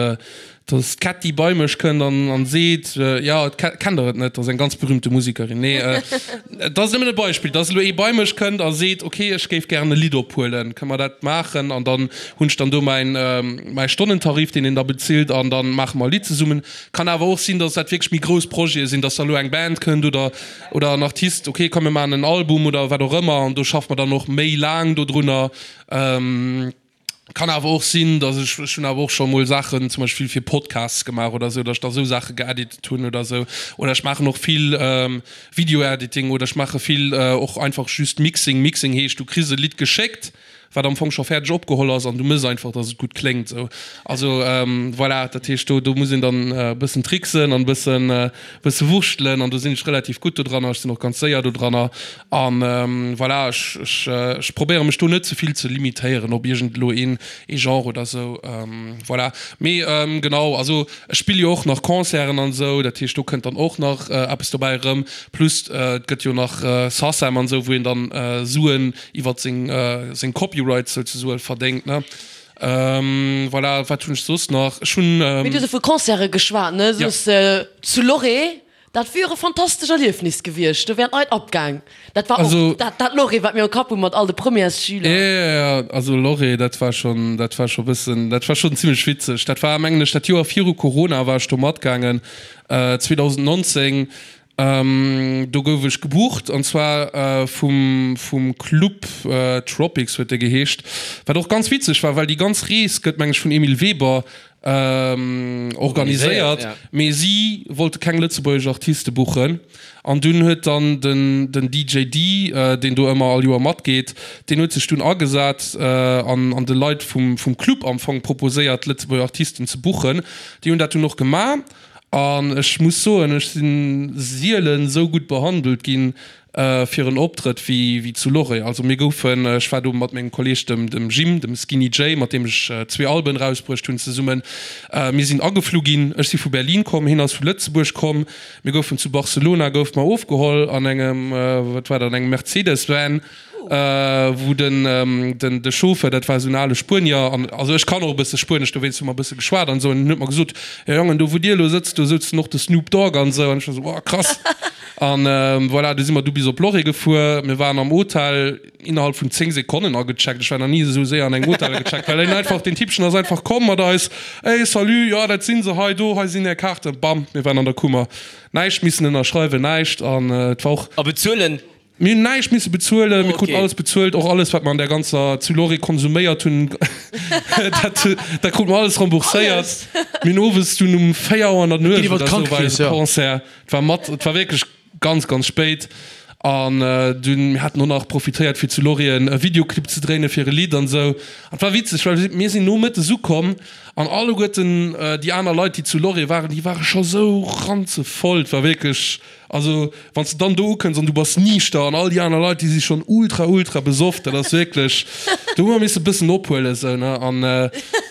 D: Dass d'Kätti bei mech kënnt an an seet, jo, kennt der et net, dat ass eng ganz berühmte Musekerin. Nee, et ass nëmmen e Beispill, dass elo ee bei mech kënnt a seet, ok, ech géif gären e Lidd ophuelen, kënne mer dat maachen? An dann hunn ech dann do mäin mäi Stonnentarif, deen een da bezilt an da maache mer e Lidd zesummen. Kann awer och sinn, dass dat wierklech méi grouss Projete sinn, dass da elo eng Band kënnt oder oder en Artist, ok, komm mir maachen en Album oder wat och ëmmer an do schaffe mer dann och méi laang dodrunner. Kann awer och sinn, dass ech, ech hunn awer och scho mol Saachen zum Beispill fir Podcasts gemaach oder esou, dass ech da esou Saache geeditet hunn oder esou. Oder ech maachen och vill Video-Editing oder ech maache vill och einfach just Mixing. Mixing heescht, du kriss e Lidd geschéckt, wat am Fong scho fäerdeg opgeholl ass an du mëss einfach, dass et gutt kléngt esou. Also voilà, dat heescht do, do muss een dann e bëssen tricksen an e bëssen, bësse wurschtelen an do sinn ech relativ gutt dodranner. Ech sinn och ganz séier dodranner. An voilà, ech, ech, ech probéiere mech do net ze vill ze limitéieren op iergend elo een, ee Genre oder esou. Voilà. Mee genau, also ech spille jo och nach Concerten an esou, dat heescht do kënnt dann och nach eppes dobäi erëm. Plus et gëtt jo nach Sacem an esou, wou een dann Suen iwwert seng, seng Copyrights souzesoe verdéngt, ne. Voilà, wat hunn ech soss nach? Ech hunn.
F: Mee du hues jo vu Concerte geschwat, ne? Soss zu Lloret. Dat wier e fantastesch Erliefnis gewiescht, do wären d'Leit abgaang. Dat war och dat, dat Lorée, wat mir am Kapp hu mat all de Premièresschüler.
D: Jo, jo, jo, also Lorée, dat war schonn, dat war scho bëssen, dat war schonn zimlech witzeg. Dat war, mengen ech, dat Joer viru Corona war ech do matgaangen, 2019. Do gouf ech gebucht, an zwar vum, vum Club Tropics huet dee geheescht, wat och ganz witzeg war, well déi ganz Rees gëtt, meng ech, vun Emile Weber organiséiert, mee si wollte keng lëtzebuergesch Artiste buchen an dunn huet dann den den DJ Dee, deen do ëmmer all Joer matgeet, deen huet sech dunn agesat an an de Leit vum vum Club am Fong proposéiert lëtzebuerger Artisten ze buchen. Déi hunn dat dunn och gemaach an ech muss soen, ech si sielen esou gutt behandelt ginn, fir en Optrëtt wéi zu Loré. Also mir goufen, ech war do mat mengem Kolleeg dem dem Jim, dem Skinny Jay, mat deem ech zwee Alben erausbruecht hunn zesummen, mir sinn ageflu ginn. Ech si vu Berlin komm, hien ass vu Lëtzebuerg komm. Mir goufen zu Barcelona goufe mer ofgeholl an engem, wat war dat, an engem Mercedes Van. Wou den den de Chauffeur, dat war esou en ale Spuenier, an also ech kann och e bësse Spuenesch, dowéinst hu mer e bësse geschwat an esou, an en huet mer gesot, Jo Jongen, do wou dir elo sëtzt, do souzen och de Snoop Dogg an esou, an ech war esou, Wow, krass. An voilà, du si mer du bis op Lloret gefuer, mir waren am Hotel innerhalb vun 10 Sekonnen agecheckt, ech war nach ni esou séier an engem Hotel agecheckt, well en einfach, deen Typchen ass einfach komm mat eis, Ey, salut, jo dat si se hei, do, hei sinn är Kaarten, bam, mir waren an der Kummer, näischt missen ënnerschreiwen, näischt, an et war och.
B: A bezuelen
D: Mir hunn näischt misse bezuelen, mir kruten alles bezuelt, och alles wat mer an där ganzer zu Lloret konsuméiert hunn, dat dat krute mer alles rembourséiert. Mir hunn owes dunn um 4 Auer an der Nuecht oder esou war eise Concert, et war mat, et war wierklech ganz ganz spéit an dunn, mir haten och nach profitéiert fir zu Lloret e Videoclip ze dréine fir e Lidd an esou. An et war witzeg, well mir sinn nomëttes ukomm an alleguerten déi aner Leit déi zu Lloret waren, déi ware scho sou ranzevoll, et war wierklech Also wann s de dann do ukënns an du bass niichter an all déi aner Leit déi si schonn ultra ultra besoff, dat ass wierklech, do hu mer misse bëssen ophuelen esou ne an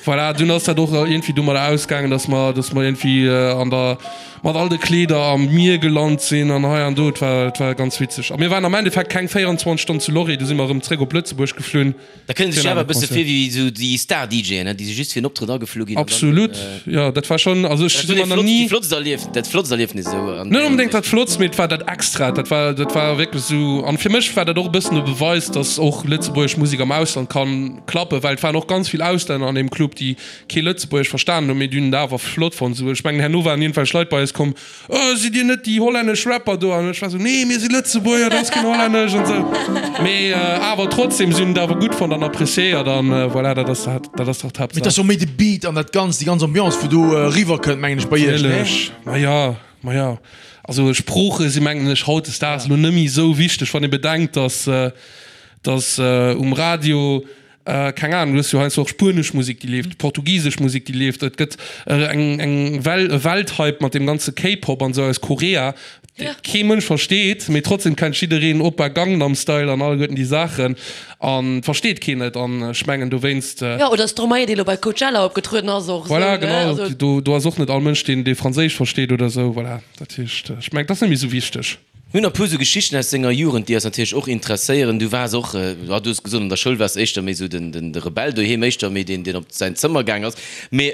D: voilà, dunn ass dat och iergendwéi domadder ausgaangen, datt mer, datt mer iergendwéi an der mat all de Kleeder am Mier gelant sinn an hei an do, et war, et war ganz witzeg a mir waren am Endeffekt keng 24 Stonnen zu Lloret, du si mer erëm zréck op Lëtzebuerg geflunn.
B: Da kënne sech awer e bësse vir wéi esou déi Star-DJen, déi si just fir en Optrëtt ageflu ginn.
D: Absolut, jo, dat war schonn, also ech si mer nach ni.
B: Dat flottst Erlief, dat flottst Erliefnis esou
D: an. Net onbedéngt dat flottst, mee et war dat Extraet, dat war, dat war wierklech esou. An fir mech war dat och e bëssen e Beweis, datt och lëtzebuergesch Musek am Ausland kann klappen, well et waren och ganz vill Auslänner an deem Club, déi kee Lëtzebuergesch verstanen hunn, mee déi hunn et awer flott fonnt. Esou, ech mengen herno waren iergendwelch Leit bei eis komm, Oh, sidd dir net déi hollännesch Rapper do? An ech war sou, Nee, mir si Lëtzebuerger, dat ass keen Hollännesch an sou. Mee awer trotzdem, si hunn et awer gutt fonnt an appréciéiert an voilà, dat ass dat, dat ass dach
C: d'Haaptsaach. Mee et ass jo méi de Beat an dat Ganzt, déi ganz Ambiance, wou do eriwwer kënnt, mengen ech, bei iech, nee?
D: Natierlech, ma ja, ma ja. Also Sprooche si mengen ech hautdesdaags elo net méi esou wichteg, wann ee bedenkt, dass, dass um Radio, Keng Ahnung, du hues jo heiansdo och spuenesch Musek, déi leeft, portugisesch Musek, déi leeft. Et gëtt eng eng Well, e Welthype mat deem ganze K-Pop an esou aus Korea, dee kee Mënsch versteet, mee trotzdem kennt jiddereen Oppa Gangnam Style an alleguerten déi Saachen an versteet keen et. An ech mengen dowéinst.
F: Jo, oder Stromae, dee lo bei Coachella opgetrueden ass, och
D: esou, ne? Voilà, genau. Do do ass och net all Mënsch, deen dee Franséisch versteet oder esou. Voilà, dat heescht, ech mengen, et ass net méi esou wichteg.
B: Mir hunn nach e puer sou Geschichten aus denger Jugend, déi eis natierlech och interesséieren. Du waars och, jo, du hues gesot, an der Schoul waars de éischter méi sou den, den, de Rebell, doheem éischter méi deen, deen op säin Zëmmer gaang ass. Mee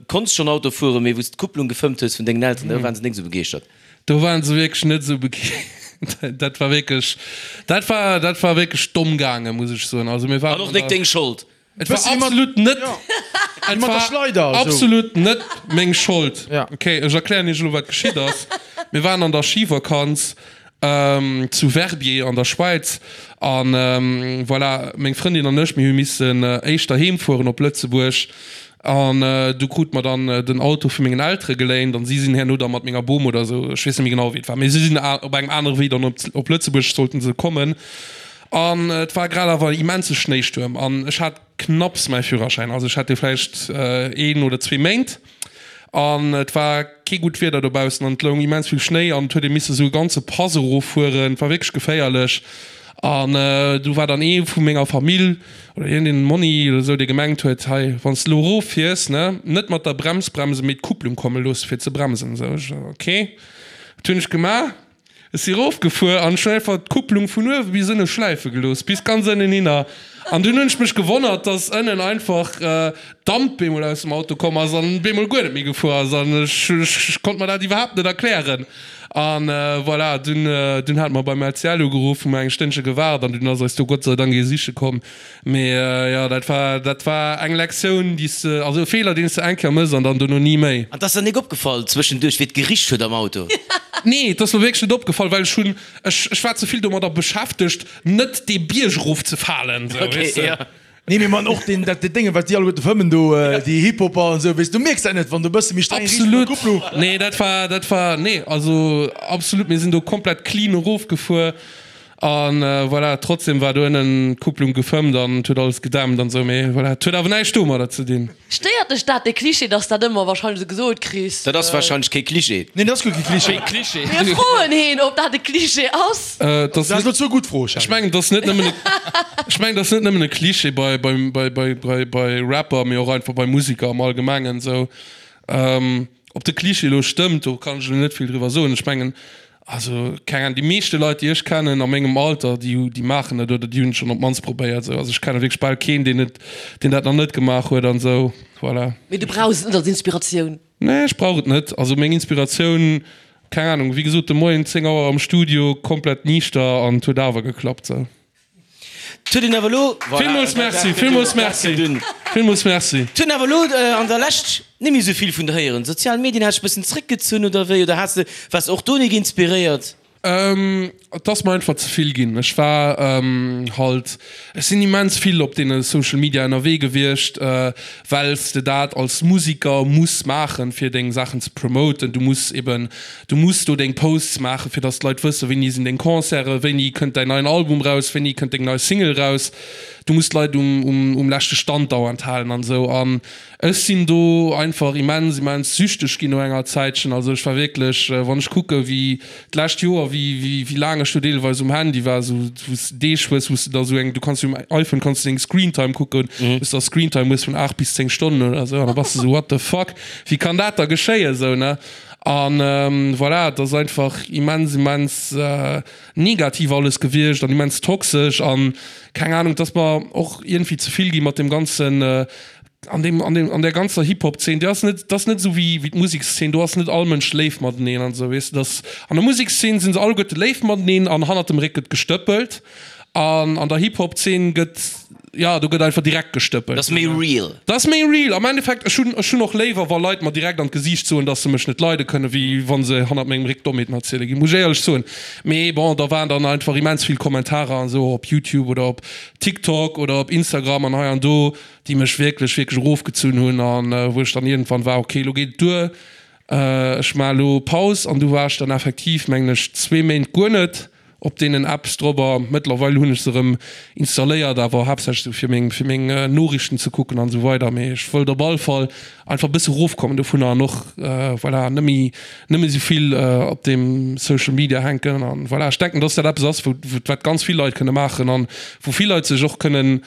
B: konns schonn Auto fueren, mee wou s d'Kupplung gefëmmt hues vun dengen Elteren, do waren se nik sou begeeschtert.
D: Do waren se wierklech net sou begeeschtert. Dat war wierklech, dat war, dat war wierklech domm gaangen, muss ech soen. Also mir waren
B: An och nik deng Schold.
D: Et war absolut net, et war absolut net meng Schold. Ok, ech erklären iech elo wat geschitt ass. Mir waren an der Schivakanz zu Verbier an der Schwäiz an voilà, meng Frëndin an ech, mir hu missen éischter heem fueren op Lëtzebuerg an du krute mer dann den Auto vu mengen Eltere geléint an si sinn herno da mat menger Bom oder esou, ech weess net méi genau wéi et war, mee si sinn op engem anere Wee dann op Lëtzebuerg sollten se kommen. An et war grad awer en immense Schnéistuerm an ech hat knapps mäi Führerschäin, also ech hat dee vläicht een oder zwee Méint an et war kee gutt Wieder dobaussen an et loung immens vill Schnéi an et huet ee misse sou e ganze Pass eroffueren, et war wierklech geféierlech. An du war dann ee vu menger Famill oder iergendeen Monni oder sou, dee gemengt huet, hei wann s de elo eroffiers, ne, net mat der Brems bremsen, mee d'Kupplung komme loosse fir ze bremsen. Sou ech, ok, wat hunn ech gemaach? Ech si rofgefuer an ech hunn einfach d'Kupplung vun uewe bis ënne schläife gelooss, bis ganz ënnen hinner. An dunn hunn ech mech gewonnert, dass ënnen einfach Damp bemol aus dem Auto komm ass an bemol guer net méi gefuer ass. An ech, ech konnt mer dat iwwerhaapt net erklären. An voilà, dunn, dunn hate mer beim LCL ugeruff, hu mer eng Stënnche gewaart an dunn ass eis do Gott sei Dank ee siche komm. Mee jo, dat war, dat war eng Lektioun, déi s de, also e Feeler, deen s de eng Kéier mëss an dann dono ni méi.
B: An 't ass der nik opgefall zwëschenduerch, wéi et gericht huet am Auto?
D: Nee, et ass mer wierklech net opgefall, well ech hunn, ech, ech war ze vill domadder beschäftegt, net dee Bierg erof ze falen, sou,
C: weess de. Nee, mee man, och deen, dat Dénge, wat déi alleguerte fëmmen do, déi Hip-Hopper an esou, weess de, du mierks dat net, wann du e bësse méi streng riicht mat der
D: Kupplung. Absolut, nee, dat war, dat war, nee, also absolut, mir sinn do komplett clean erofgefuer. An voilà, trotzdem war do ënnen d'Kupplung gefëmmt an et huet alles gedämpt an esou, mee voilà, et huet awer näischt domadder ze dinn.
F: Stéiert dech dat, dee Cliché, dass dat ëmmer wahrscheinlech esou gesot kriss?
B: Dat ass wahrscheinlech kee Cliché.
C: Neen, dat ass guer kee Cliché.
E: Kee Cliché.
F: Mir froen heen, ob dat e Cliché ass.
D: Dat
C: ass elo zwou gutt Froe,
D: Charly. Ech mengen, dat ass net nëmmen e, ech mengen, dat ass net nëmmen e Cliché bei, bei, bei, bei, bei, bei Rapper, mee och einfach bei Musiker am Allgemengen esou. Ob de Cliché elo stëmmt, do kann ech elo net vill driwwer soen. Ech mengen, also keng Ahnung, déi meeschte Leit, déi ech kennen a mengem Alter, déi hu, déi maachen et oder déi hunn et schonn op d'mannst probéiert esou. Also ech kenne wierklech bal keen, deen et, deen dat nach net gemaach huet an esou, voilà.
F: Mee du brauchs et net als Inspiratioun?
D: Nee, ech brauch et net. Also meng Inspiratioun, keng Ahnung, wéi gesot, de Moien 10 Auer am Studio, komplett niichter an et huet awer geklappt esou.
B: 't huet een awer elo, voilà,
D: Villmools merci, villmools merci, villmools merci.
B: 't huet een awer elo an der Lescht net méi esou vill vun der héieren. Sozial Medien, has dech bëssen zréckgezunn oder wéi? Oder has de, waars de och do nik inspiréiert?
D: Et ass mer einfach ze vill ginn. Ech war halt, ech sinn immens vill op deene Social Media ënnerwee gewiescht, well s de dat als Musiker muss maachen, fir deng Saachen ze promoten. Du muss eben Du muss do deng Posts maachen, fir dass d'Leit wëssen, wéini sinn deng Concerten, wéini kënnt däin neien Album raus, wéini kënnt deng nei Single raus. Du muss d'Leit um, um leschte Stand dauernd halen an esou. An ech sinn do einfach immens, immens süchteg ginn no enger Zäitchen. Also ech war wierklech, wann ech kucke wéi d'lescht Joer, wéi, wéi, wéi laang ech do deelweis um Handy war, esou wou s de Deeg hues, wou s de da esou eng, du kanns jo um iPhone kanns du deng Screentime kucken, wou s de da Screentime hues vun 8 bis 10 Stonnen oder esou an da bass de esou, what the fuck, wéi kann dat da geschéien esou, ne? An voilà, et ass einfach immens, immens negativ alles gewiescht an immens toxesch an keng Ahnung, et ass mer och iergendwéi ze vill gi mat deem ganzen, an deem, an deem, an där ganzer Hip-Hop-Zeen. Déi ass net, dat ass net esou wéi, wéi d'Musekszeen, do ass net all Mënsch léif mateneen an esou, weess de. Dass, an der Musekszeen si se alleguerte léif mateneen an hannert dem Réck gëtt gestëppelt an an der Hip-Hop-Zeen gëtt, jo, do gëtt einfach direkt gestëppelt.
B: Dat ass méi real.
D: Dat ass méi real. Am Endeffekt, ech hunn, ech hunn och léiwer, wa Leit mer direkt an d'Gesiicht soen, dass se mech net leide kënnen, wéi wa se hannert mengem Réck Dommheeten erziele ginn, muss ech éierlech soen. Mee bon, da waren dann einfach immens vill Kommentarer an esou op YouTube oder op TikTok oder op Instagram an hei an do, déi mech wierklech, wierklech erofgezunn hunn an wou ech dann iergendwann war, okay, elo geet et duer, ech maache elo Paus. An du war ech dann effektiv, mengen ech, zwee Méint guer net Op deenen Apps drobber. Mëttlerweil hunn ech se erëm installéiert, awer haaptsächlech sou fir meng fir meng Noriichten ze kucken an esou weider. Mee ech wëllt op all Fall einfach e bësse rofkommen dovunner an och voilà net méi net méi sou vill op deem Social Media hänken an voilà. Ech denken, dass dat eppes ass, wou wat ganz vill Leit kënne maachen an wou vill Leit sech och kënnen.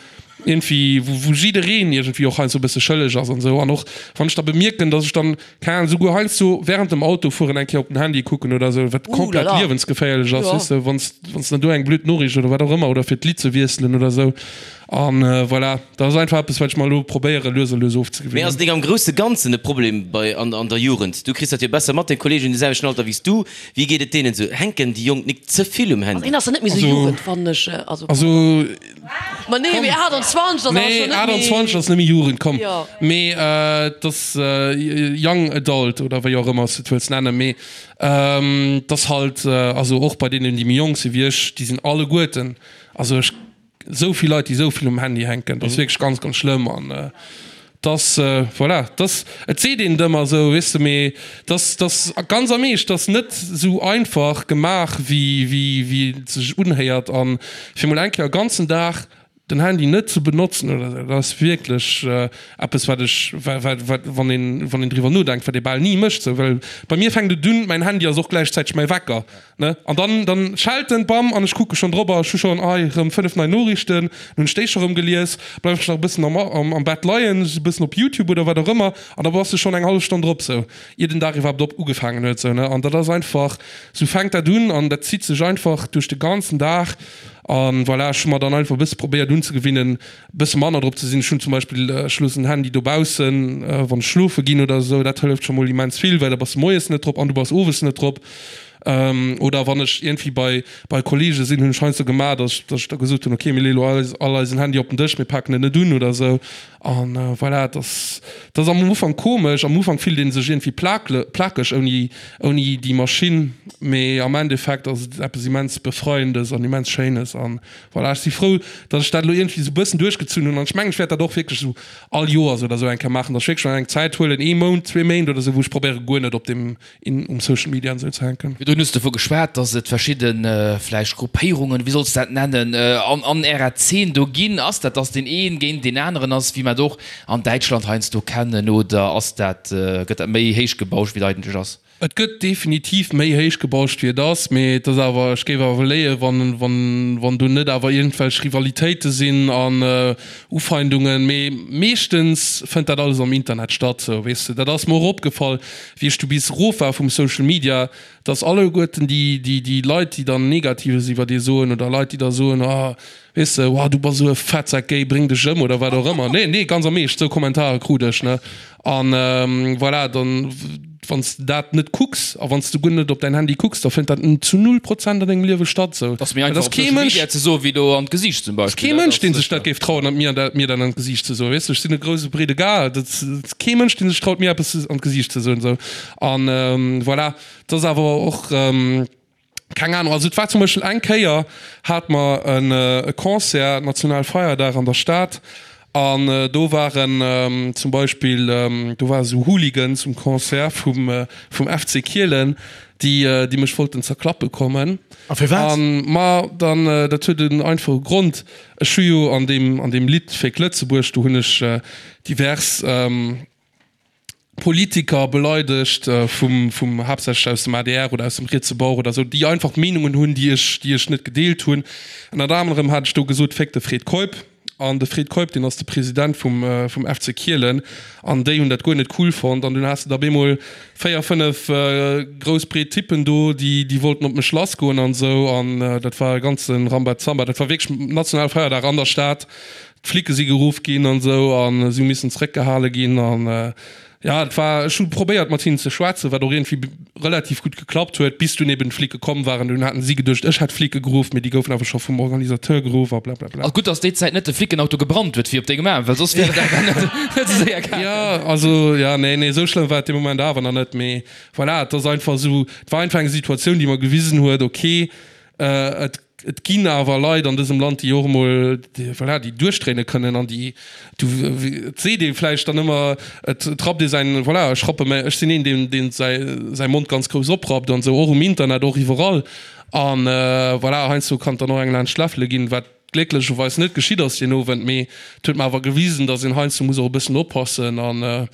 D: Iergendwéi, wou, wou jiddereen iergendwéi och heiansdo e bësse schëlleg ass an esou. An och wann ech da bemierken, dass ech dann, keng Ahnung, souguer heiansdo während dem Autofueren eng Kéier op den Handy kucken oder esou, wat komplett liewensgeféierlech ass, weess de, wann s, wann s de dann do eng blöd Noriicht oder wat och ëmmer oder fir d'Lidd ze wiesselen oder esou. An voilà, dat ass einfach eppes, wat ech mer elo probéiere lues a lues
B: Mee
D: ofzegewinnen.
B: ass et nik am grousse Ganzen e Problem bei, an, an der Jugend? Du kriss dat jo besser mat, deng Kolleegen hunn de selwechten Alter wéi s du. Wéi geet et deenen esou? Hänken déi Jonk nik ze vill um
F: Handy? Also een ass jo net méi esou Jugend, fannen ech.
D: Also, also
F: Ma nee, mee 28 ass awer
D: Nee,
F: schon net méi.
D: 28 ass net méi Jugend, komm.
F: Jo.
D: Mee et ass Young Adult oder wéi och ëmmer s de et wëlls nennen. Mee et ass halt, also och bei deenen, déi méi jonk si wéi ech, déi sinn alleguerten, also ech, esou vill Leit, déi esou vill um Handy hänken, dat ass wierklech ganz, ganz schlëmm. An et ass, voilà, et ass, et seet een et ëmmer esou, weess de, mee et ass, et ass ganz am Eescht, et ass net esou einfach gemaach, wéi, wéi, wéi et sech unhéiert. A fir mol eng Kéier e ganzen Dag den Handy net ze benotzen oder esou, dat ass wierklech eppes, wat ech, wat, wat, wann een, wann een driwwer nodenkt, wat ee bal ni mécht esou. Well bei mir fänkt et un, mäin Handy ass och gläichzäiteg mäi Wecker. Ne? An dann, dann schellt en, bam, an ech kucke schonn drop a ech hu schonn, ei, rëm 5 nei Noriichten, dann hunn ech déi scho rëm gelies, bleiwen ech nach e bëssen am, am, am Bett leien, e bëssen op Youtube oder wat och ëmmer, an da bass de schonn eng hallef Stonn drop, sou, ier den Dag iwwerhaapt op ugefaangen huet, sou, ne? An dat ass einfach, sou fänkt dat un an dat zitt sech einfach duerch de ganzen Dag. An voilà, ech hu mer dann einfach e bësse probéiert unzegewinnen, e bësse manner drop ze sinn. Ech hunn zum Beispill, ech loossen den Handy dobaussen, wann ech schlofe ginn oder esou, dat hëlleft scho mol immens vill, well da bass de moies net drop an du bass owes net drop. Oder wann ech iergendwéi bei bei Kolleege sinn, hunn ech heiansdo gemaach, datt ech datt ech da gesot hunn, okay, mir leeë lo eis all eisen Handy op den Dësch, mir paken en net un oder esou. An voilà, et ass et ass am Ufank komesch, am Ufank fillt ee sech iergendwéi plakle plakeg ouni ouni déi Maschinn, mee am Endeffekt ass et eppes immens Befreiendes an immens Schéines. An voilà, ech si frou, datt ech dat elo iergendwéi esou e bëssen duerchgezunn hunn an ech mengen, ech wäert dat och wierklech esou all Joers oder esou eng Kéier maachen, datt ech wierklech mer eng Zäit huelen, ee Mount, zwee Méint oder esou, wou ech probéiere guer net op deem in um Social Media an esou ze hänken.
E: Virdrun hues de dovu geschwat, dass et verschidde vläicht Gruppéierungen, wéi solls de dat nennen, an an ärer Zeen do ginn. Ass dat, dass deen een géint deen aneren ass, wéi mer et och an Däitschland heiansdo kennen, oder ass dat, gëtt dat méi héich gebauscht, wéi et eigentlech ass?
D: Et gëtt definitiv méi héich gebauscht, wéi et ass, mee et ass awer, ech géif awer léien, wann, wann, wann do net awer iergendwelch Rivalitéite sinn an Ufeindungen, mee meeschtens fënnt dat alles am Internet statt, sou, weess de. Dat ass mer och opgefall, wéi ech du bis erof war vum Social Media, dass alleguerten déi, déi, déi Leit, déi dann Negatives iwwer ee soen oder Leit, déi da soen, oh, weess de, oh, du bass esou e Fettsak, géi, bréng dech ëm oder wat och ëmmer. Nee, nee, ganz am Eescht, esou Kommentare krut ech, ne. An voilà, dann, wann s de dat net kucks a wann s de guer net op däin Handy kucks, da fënnt dat zu null Prozent an dengem Liewe statt, esou.
E: Et ass méi einfach op Social Media ze soen, wéi do an d'Gesiicht zum
D: Beispill. Kee Mënsch, dee sech dat géif trauen, mir dat, mir dat an d'Gesiicht ze soen. Weess de, ech sinn e grouse, breede Gars, dat ass kee Mënsch, dee sech traut, mir eppes an d'Gesiicht ze soen, esou. An voilà, et ass awer och, keng Ahnung, also et war zum Beispill eng Kéier, hate mer e Concert, Nationalfeierdag an der Stad, an do waren zum Beispill, do ware sou Hooligans um Concert vum, vum FC Kielen, déi, déi mech wollten zerklappe kommen.
C: A firwat?
D: An, ma dann, dat huet en einfache Grond, ech hu jo an deem, an deem Lidd Féck Lëtzebuerg, do hunn ech divers Politiker beleidegt, vum, vum, haaptsächlech aus dem adr oder aus dem rietse Bauch oder esou, déi einfach Meenungen hunn, déi ech, déi ech net gedeelt hunn. Ënnert anerem hat ech do gesot, Féck de Fred Keup. An de Fred Keup, deen ass de President vum, vum FC Kielen. An déi hunn dat guer net cool fonnt. An dunn has de da bemol 4, 5 grouss breet Typen do, déi, déi wollten op mech lassgoen an esou. An dat war e ganze Rambazamba. Dat war wierklech Nationalfeierdag an der Stad. D'Flicke si geruff ginn an esou a si hu missen zeréckgehale ginn. An jo, et war, ech hu probéiert mat hinnen ze schwätzen, wat och iergendwéi relativ gutt geklappt huet, bis dunn eben d'Flicke komm waren. Dunn haten si geduecht, ech hätt d'Flicke geruff, mee déi goufen awer scho vum Organisateur geruff a blablabla.
E: A gutt, datt déi Zäit net de Flickenauto gebrannt huet, wéi op dengem Aarm, well soss wier et awer net esou séier gaangen.
D: Jo, also, jo, nee, nee, esou schlëmm war et dee Moment awer nach net. Mee voilà, et ass einfach esou, et war einfach eng Situatioun, déi mer gewisen huet, okay, et Et ginn awer Leit an dësem Land, déi och emol, voilà, déi duerchdréine kënnen an déi, du, et seet ee vläicht dann ëmmer, et rappt ee säin, voilà, ech rappe mäi, ech sinn een, deen, deen säi, säi Mond ganz grouss oprappt an esou, och um Internet, och iwwerall. An voilà, heiansdo kann et dann och eng laanscht d'Läffele ginn, wat glécklecherweis net geschitt ass deen Owend, mee et huet mer awer gewisen, datt een heiansdo muss och e bëssen oppassen an,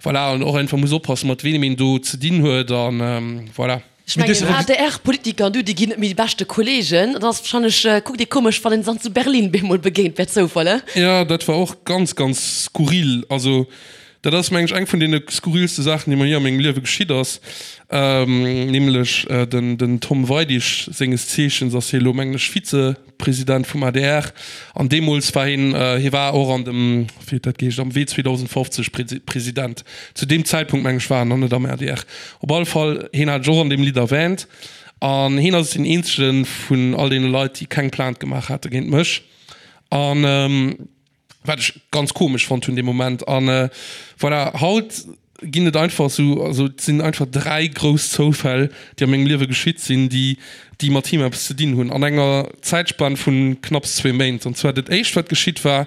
D: voilà, an och einfach muss oppassen, mat weem een do ze dinn huet an, voilà.
F: Ech mengen, ADR-Politiker an du, déi ginn net méi déi beschte Kollegen. Dann ass wahrscheinlech, kuckt ee komesch, wann een se dann zu Berlin bemol begéint, per Zoufall, he?
D: Jo, dat war och ganz, ganz skurril. Also, dat ass, meng ech, eng vun deene skurrilste Saachen, déi mer jee a mengem Liewe geschitt ass. Nämlech den Tom Weidig, senges Zeechens ass hie elo, mengen ech, Vize. President vum adr, an deemools war hien, hie war och an dem, wéi huet dat geheescht, am Wee 2050 President. Zu deem Zäitpunkt, meng ech, war en nach net am adr. Op alle Fall, hien hat ech och an deem Lidd erwähnt, an hien ass deen eenzege vun all deene Leit, déi keng Plainte gemaach hate géint mech. An. Wat ech ganz komesch fonnt hunn dee Moment. An voilà, haut ginn et einfach esou, also et sinn einfach 3 grouss Zoufäll, déi a mengem Liewe geschitt sinn, déi, déi mat him eppes ze dinn hunn, an enger Zäitspann vu knapps zwee Méint. An zwar dat éischt, wat geschitt war,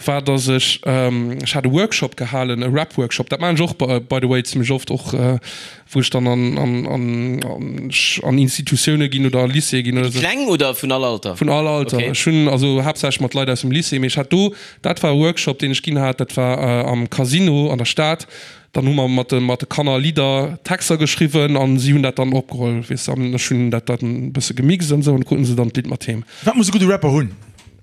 D: war, dass ech, ech hat e Workshop gehalen, e Rap-Workshop, dat maachen ech och by the way zimmlech oft, och wou ech dann an, an, an, an Institutioune ginn oder a Lycéeë ginn oder
B: esou. Kleng oder vun all Alter?
D: Vun all Alter. Okay. Ech hunn also haaptsächlech mat Leit aus dem Lycée, mee ech hat do, dat war e Workshop, deen ech ginn hat, dat war am Casino an der Stad. Dann hu mer mat de, mat de Kanner Lidder, Texter geschriwwen an si hunn dat dann opgeholl, weess de, an ech hunn dat dann e bësse gemixt an esou an kruten se dann d'Lidd mat heem.
C: Wat muss e gudde Rapper hunn?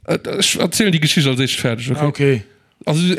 D: Ech erzielen déi Geschicht als éischt fäerdeg, okay?
C: Ah, okay.
D: Also,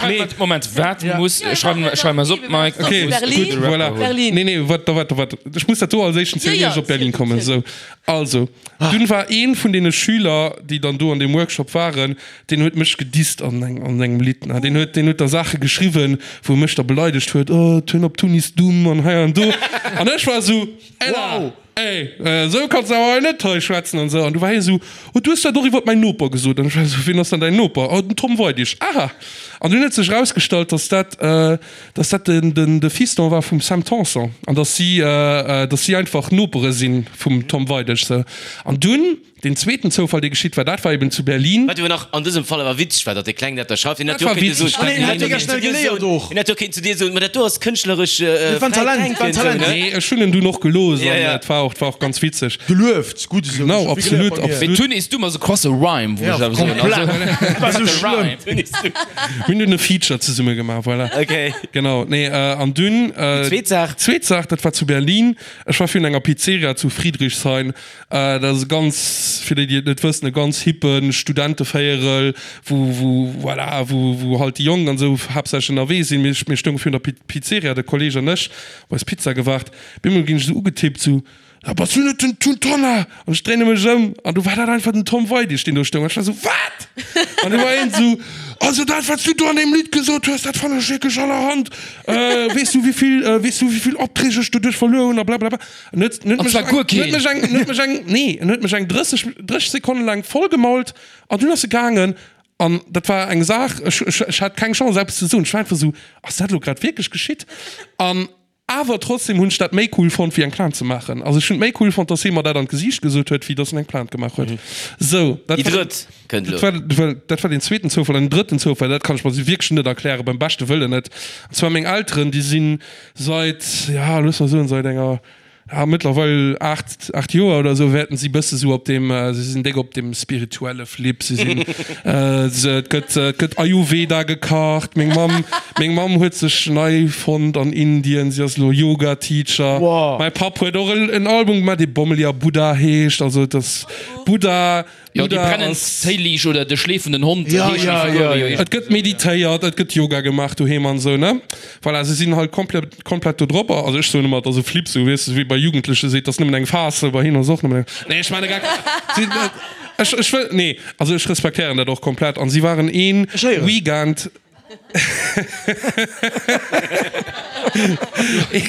E: Nee. Moment, wat muss, schreiwen, schreiwen mer es op, Mike.
D: Okay,
F: Berlin,
D: gutt, voilà.
F: Berlin.
D: Nee, nee, wat, wat, wat, ech muss dat do als éischten zielen,
F: Ja,
D: ier ech
F: ja,
D: op Berlin
F: ziel,
D: kommen.
F: ziel.
D: Sou, also, dunn war een vun deene Schüler, déi dann do an deem Workshop waren, deen huet mech gedisst an eng, an engem Lidd, ne. Deen huet, deen huet da Saache geschriwwen, wou e mech da beleidegt huet, oh, Turn op Tun is dumm an hei an do. An ech war esou, Ella!
C: Wow!
D: Ey, esou kanns de awer hei net hei schwätzen an esou. An du war hie esou, Oh, du hues dat och iwwert mäin Noper gesot. An ech war esou, Wien ass dann däin Noper? Oh, den Tom Weidig. Aha! An dunn huet sech erausgestallt, dass dat, dass dat den, den, de Fiston war vum Sam Tanson an dass si, dass si einfach Nopere si vum Tom Weidig. Sou. An dunn. Deen zweeten Zoufall, dee geschitt war, dat war eben zu Berlin.
B: Wat jo nach an dësem Fall awer witzeg war, datt dee Kleng dat da schreift. Hien
D: Dat
B: hätt jo
D: war
B: och kéinte
D: witzeg,
B: soen,
D: dat
B: hien hätt jo
C: mega
B: kéinten
C: schnell
B: zu dir
C: geléiert
B: soen,
C: och.
B: hien hätt jo kéinten zu dir soen, ma dat do ass kënschtleresch
C: Dat war en
B: fräit
C: Talent, dat war en
B: Denken, sou,
C: Talent.
B: ne?
D: Nee, ech hunn en dunn och gelooss
B: Ja,
D: an
B: ja.
D: et war och, et war och ganz witzeg.
C: Gelueft, gutt esou.
D: Genau,
C: Ech hu vill geléiert
D: absolut,
C: bei mir.
E: Mee
D: absolut.
E: Tun is dumm ass e krasse Rhyme, wou
C: Ja,
E: ech awer soen.
C: komplett.
E: Also,
C: Dat war sou
E: de
C: schlëmm.
E: Rhyme.
B: Tun is dumm.
D: Mir hunn dunn e Feature zesumme gemaach, voilà.
B: Okay.
D: Genau, nee, an dunn.
B: Déi zweet Saach?
D: Zweet Saach, dat war zu Berlin. Ech war virun enger Pizzeria zu Friedrichshain. Dat ass e ganz, fir déi, déi et net wëssen, e ganz hippe Studentevéierel, wou, wou, voilà, wou, wou halt déi Jonk an esou haaptsächlech ënnerwee sinn. Mir, mir stounge virun der Pizzeria, de Kolleg an ech, op eis Pizza gewaart. Op eemol ginn ech esou ugetippt, esou, Ah, bass du net den Tun Tonnar? An ech dréine mech ëm an du war dat einfach den Tom Weidig, deen do stoung. An ech war esou, Wat? An du war hien esou, Also dat, wat s du do an deem Lidd gesot hues, dat fannen ech wierklech allerhand. Weess du, wéi vill, weess du, wéi vill Opträg ech doduerch verluer hunn a blablabla. En huet, en huet
E: An
D: mech
E: zwar
D: eng,
E: guer
D: en huet
E: keen.
D: mech eng, en huet mech eng, nee, en huet mech eng 30, 30 Sekonne laang vollgemault an dunn ass e gaangen. An dat war eng Saach, ech, ech, ech hat keng Chance eppes ze soen. Ech war einfach esou, Ass dat elo grad wierklech geschitt? An awer trotzdem hunn ech dat méi cool fonnt, wéi eng Plainte ze maachen. Also ech hunn et méi cool fonnt, dass hie mer dat an d'Gesiicht gesot huet, wéi dass en eng Plainte gemaach huet. Sou, dat
B: Déi
D: war,
B: drëtt kënnt
D: dat
B: elo.
D: war, dat war, dat war deen zweeten Zoufall. An den drëtten Zoufall, dat kann ech mer wierklech net erklären, beim beschte Wëllen net. An zwar meng Elteren, déi sinn Seit, ja, looss mer soen, seit enger, ja, mëttlerweil 8, 8 Joer oder esou wäerten si bësse sou op deem, si sinn déck op deem spirituelle Flip. Si sinn, se, et gëtt, et gëtt Ayurveda gekacht. Meng Mamm, meng Mamm huet sech nei fonnt an Indien, si ass elo Yoga Teacher.
C: Wow.
D: Mäi Papp huet och en Album gemaach, dee Bommeli a Buddha heescht. Also et ass Buddha.
E: Jo, déi
D: Buddha
E: brennend
D: ass.
E: Téiliicht oder de schleefenden Hond
C: Ja,
E: heeschen déi
C: ja,
E: Figuren
C: ja,
E: jo
C: ja.
D: Et
E: iergendwéi
D: gëtt
E: esou, ja.
D: meditéiert, et gëtt Yoga gemaach doheem an esou, ne? Voilà, se sinn halt komplett, komplett do drop. Also ech soen ëmmer, et ass e Flip, sou, weess de, wéi bei Jugendleche seet, et ass nëmmen eng Phas, sou, bei hinnen ass et och nëmmen eng. Nee, ech maachen e Geck. Si, ech, ech wëll, nee, also ech respektéieren dat och komplett. An si waren een
C: Ech héieren.
D: Weekend.
E: Ech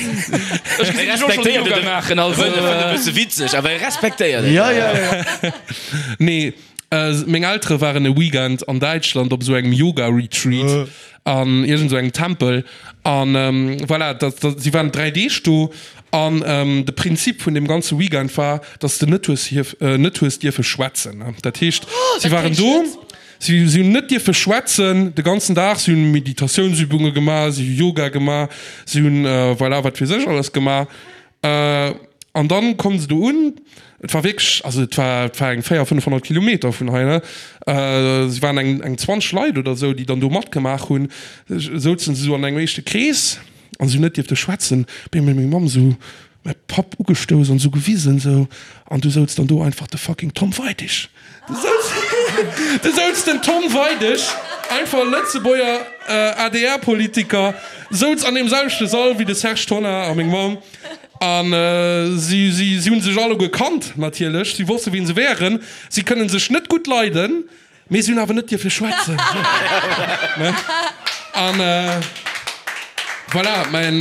E: gesinn dech och schonn Yoga maachen, also.
B: E bësse witzeg, awer e respektéiert et.
C: Ja, ja, ja.
D: Nee, meng Eltere waren e Weekend an Däitschland op esou engem Yoga-Retreat an iergend esou engem Tempel. An voilà, dat, dat, si waren 3 Deeg do. An de Prinzip vun deem ganze Weekend war, dass s de net hues hierf, net hues dierfe schwätzen. Dat heescht, si waren do. Si hunn net dierfe schwätzen de ganzen Dag, si hunn Meditatiounsübunge gemaach, si hu Yoga gemaach, si hunn voilà wat weess ech alles gemaach. An dann kommen se do un, et war wierklech, also et war, et war eng 400, 500 Kilometer vun hei, ne? Si waren eng, eng 20 Leit oder esou, déi dann do matgemaach hunn, souzen se esou an engem éischte Krees. An si hunn net dierfte schwätzen. Op eemol huet meng Mamm esou mäi Papp ugestouss an esou gewisen esou, an du souz dann do einfach de fucking Tom Weidig. Du souz, du souz den Tom Weidig, einfach e Lëtzebuerger ADR-Politiker, souz an deem selwechte Sall wéi de Serge Tonnar a meng Mamm. An si, si, si hunn sech alleguer kannt natierlech, si wosste wien se wären. Si kënnen sech net gutt leiden. Mee si hunn awer net dierfe schwätzen. An voilà, mäin,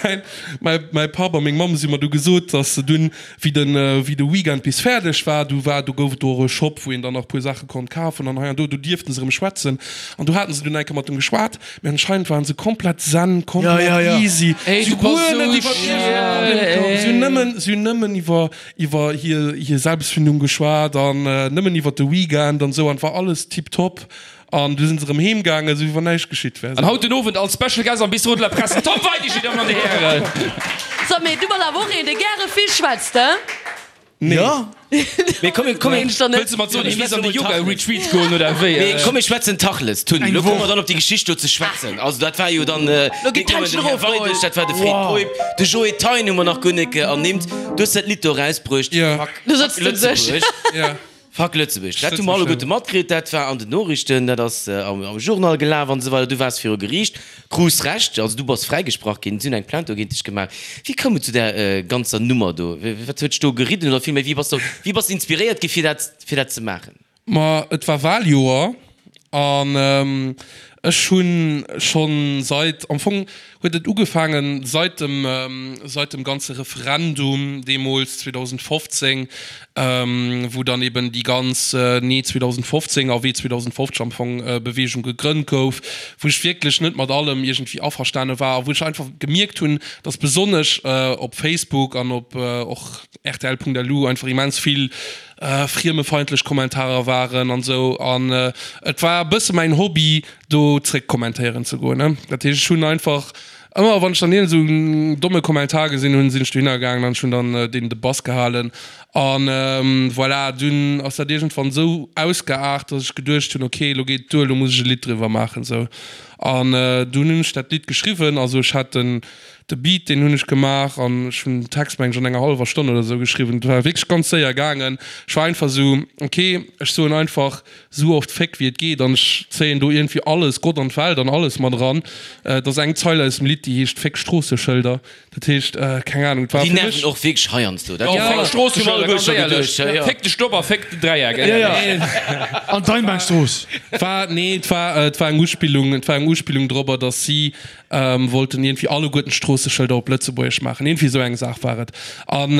D: mäin, mäi, mäi Papp a meng Mamm si mer du gesot, dass se dunn, wéi den, wéi de Weekend bis fäerdeg war, du war, do gouf et do och e Shop, wou een dann nach e puer Saache konnt kafen an hei an do, do dierften se erëm schwätzen. An do haten se dunn eng Kéier mat dem geschwat, mee anscheinend waren se komplett zen, komplett easy. Si hu guer net iwwer iergendee Problem komm, si hunn nëmmen, si hunn nëmmen iwwer iwwer hir hir Selbstfindung geschwat an nëmmen iwwer de Weekend an esou an et war alles tiptop an du sinn se erëm heem gaangen esou wéi wann näischt geschitt wär.
E: An haut den Owend als Special Guest am Bistrot de la Presse den Tom Weidig, Dir Dammen an Dir Hären.
F: So, mee du bass awer och een, dee gäre vill schwätzt, he?
D: Nee.
C: Jo.
B: Mee komm, komm,
F: Mensch, dann net.
E: Wëlls de mat soen, hie misst an de Yoga Retreat goen oder wéi?
B: Mee komm, mir schwätzen Tachles, Tun.
C: Eng
B: Lo komme
C: Woch.
B: mer dann op déi Geschicht do ze schwätzen. Also dat war jo dann,
F: Lo
B: net
F: gëtt
B: nëmmen
F: d'Händchen
B: den Här
F: erofgeholl.
B: Weidig, dat war de Fred
C: Wow.
B: Keup, de Joe Thein hu mer nach guer net ernimmt. Du hues dat Lidd do erausbruecht,
D: Ja.
B: Fuck,
F: Do
B: fuck
F: sëtzt en sech.
B: Lëtzebuerg.
D: Ja.
B: Fuck Lëtzebuerg. Dat hu mer alleguerte matkritt, dat war an den Noriichten, dat ass am, am Journal gelaf an esou weider. Du waars viru Geriicht, krus Recht, also du bass fräigesprach ginn, si hunn eng Plainte dogéint dech gemaach. Wéi koum et zu där ganzer Nummer do? Wat huet dech do geridden oder villméi, wéi bass du, wéi bass de inspiréiert gi fir dat, fir dat ze maachen?
D: Ma et war Wahljoer an ech hunn schonn seit, am Fong huet et ugefaangen seit dem, seit dem ganze Referendum deemools 2015, wou dann eben déi ganz Nee 2015 a Wee 2050 am Fong Beweegung gegrënnt gouf, wou ech wierklech net mat allem iergendwéi averstane war a wou ech einfach gemierkt hunn, dass besonnesch op Facebook an op och rtl.lu einfach immens vill friemefeindlech Kommentarer waren an esou an et war e bësse mäin Hobby do zréck kommentéieren ze goen. Dat heescht ech hunn einfach ëmmer wann ech dann iergend esou en domme Kommentar gesinn hunn, sinn ech dohinner gaangen an ech hunn dann deenen de Bass gehalen an voilà. Dunn ass dat iergendwann esou ausgeaart, datt ech geduecht hunn, ok elo geet et duer, elo muss ech e Lidd driwwer maachen esou an dunn hunn ech dat Lidd geschriwwen. Also ech hat den De Beat, deen hunn ech gemaach an ech hunn den Text, meng ech, an enger hallwer Stonn oder esou geschriwwen. Et war wierklech ganz séier gaangen. Ech war einfach esou, ok, ech soen einfach esou oft Féck wéi et geet an ech zéien do iergendwéi alles, Gott an d'Welt an alles mat eran. Et ass eng Zeil aus dem Lidd, déi heescht Féck Stroosseschëlder. Dat heescht, keng Anung, et war
B: Déi
D: fir mech.
B: nerven och wierklech heiansdo. Dat
E: Jo, Féck Stroosseschëlder, ganz éierlech.
B: Féck
E: de Stopp a féck den Dräieck.
C: Ja, ja. An d'Einbahnstrooss.
D: War, nee, et war, et war eng Uspillung, et war eng Uspillung dorobber, datt si Wollten iergendwéi alleguerten d'Stroosseschëlder op Lëtzebuergesch maachen. Iergendwéi esou eng Saach war et. An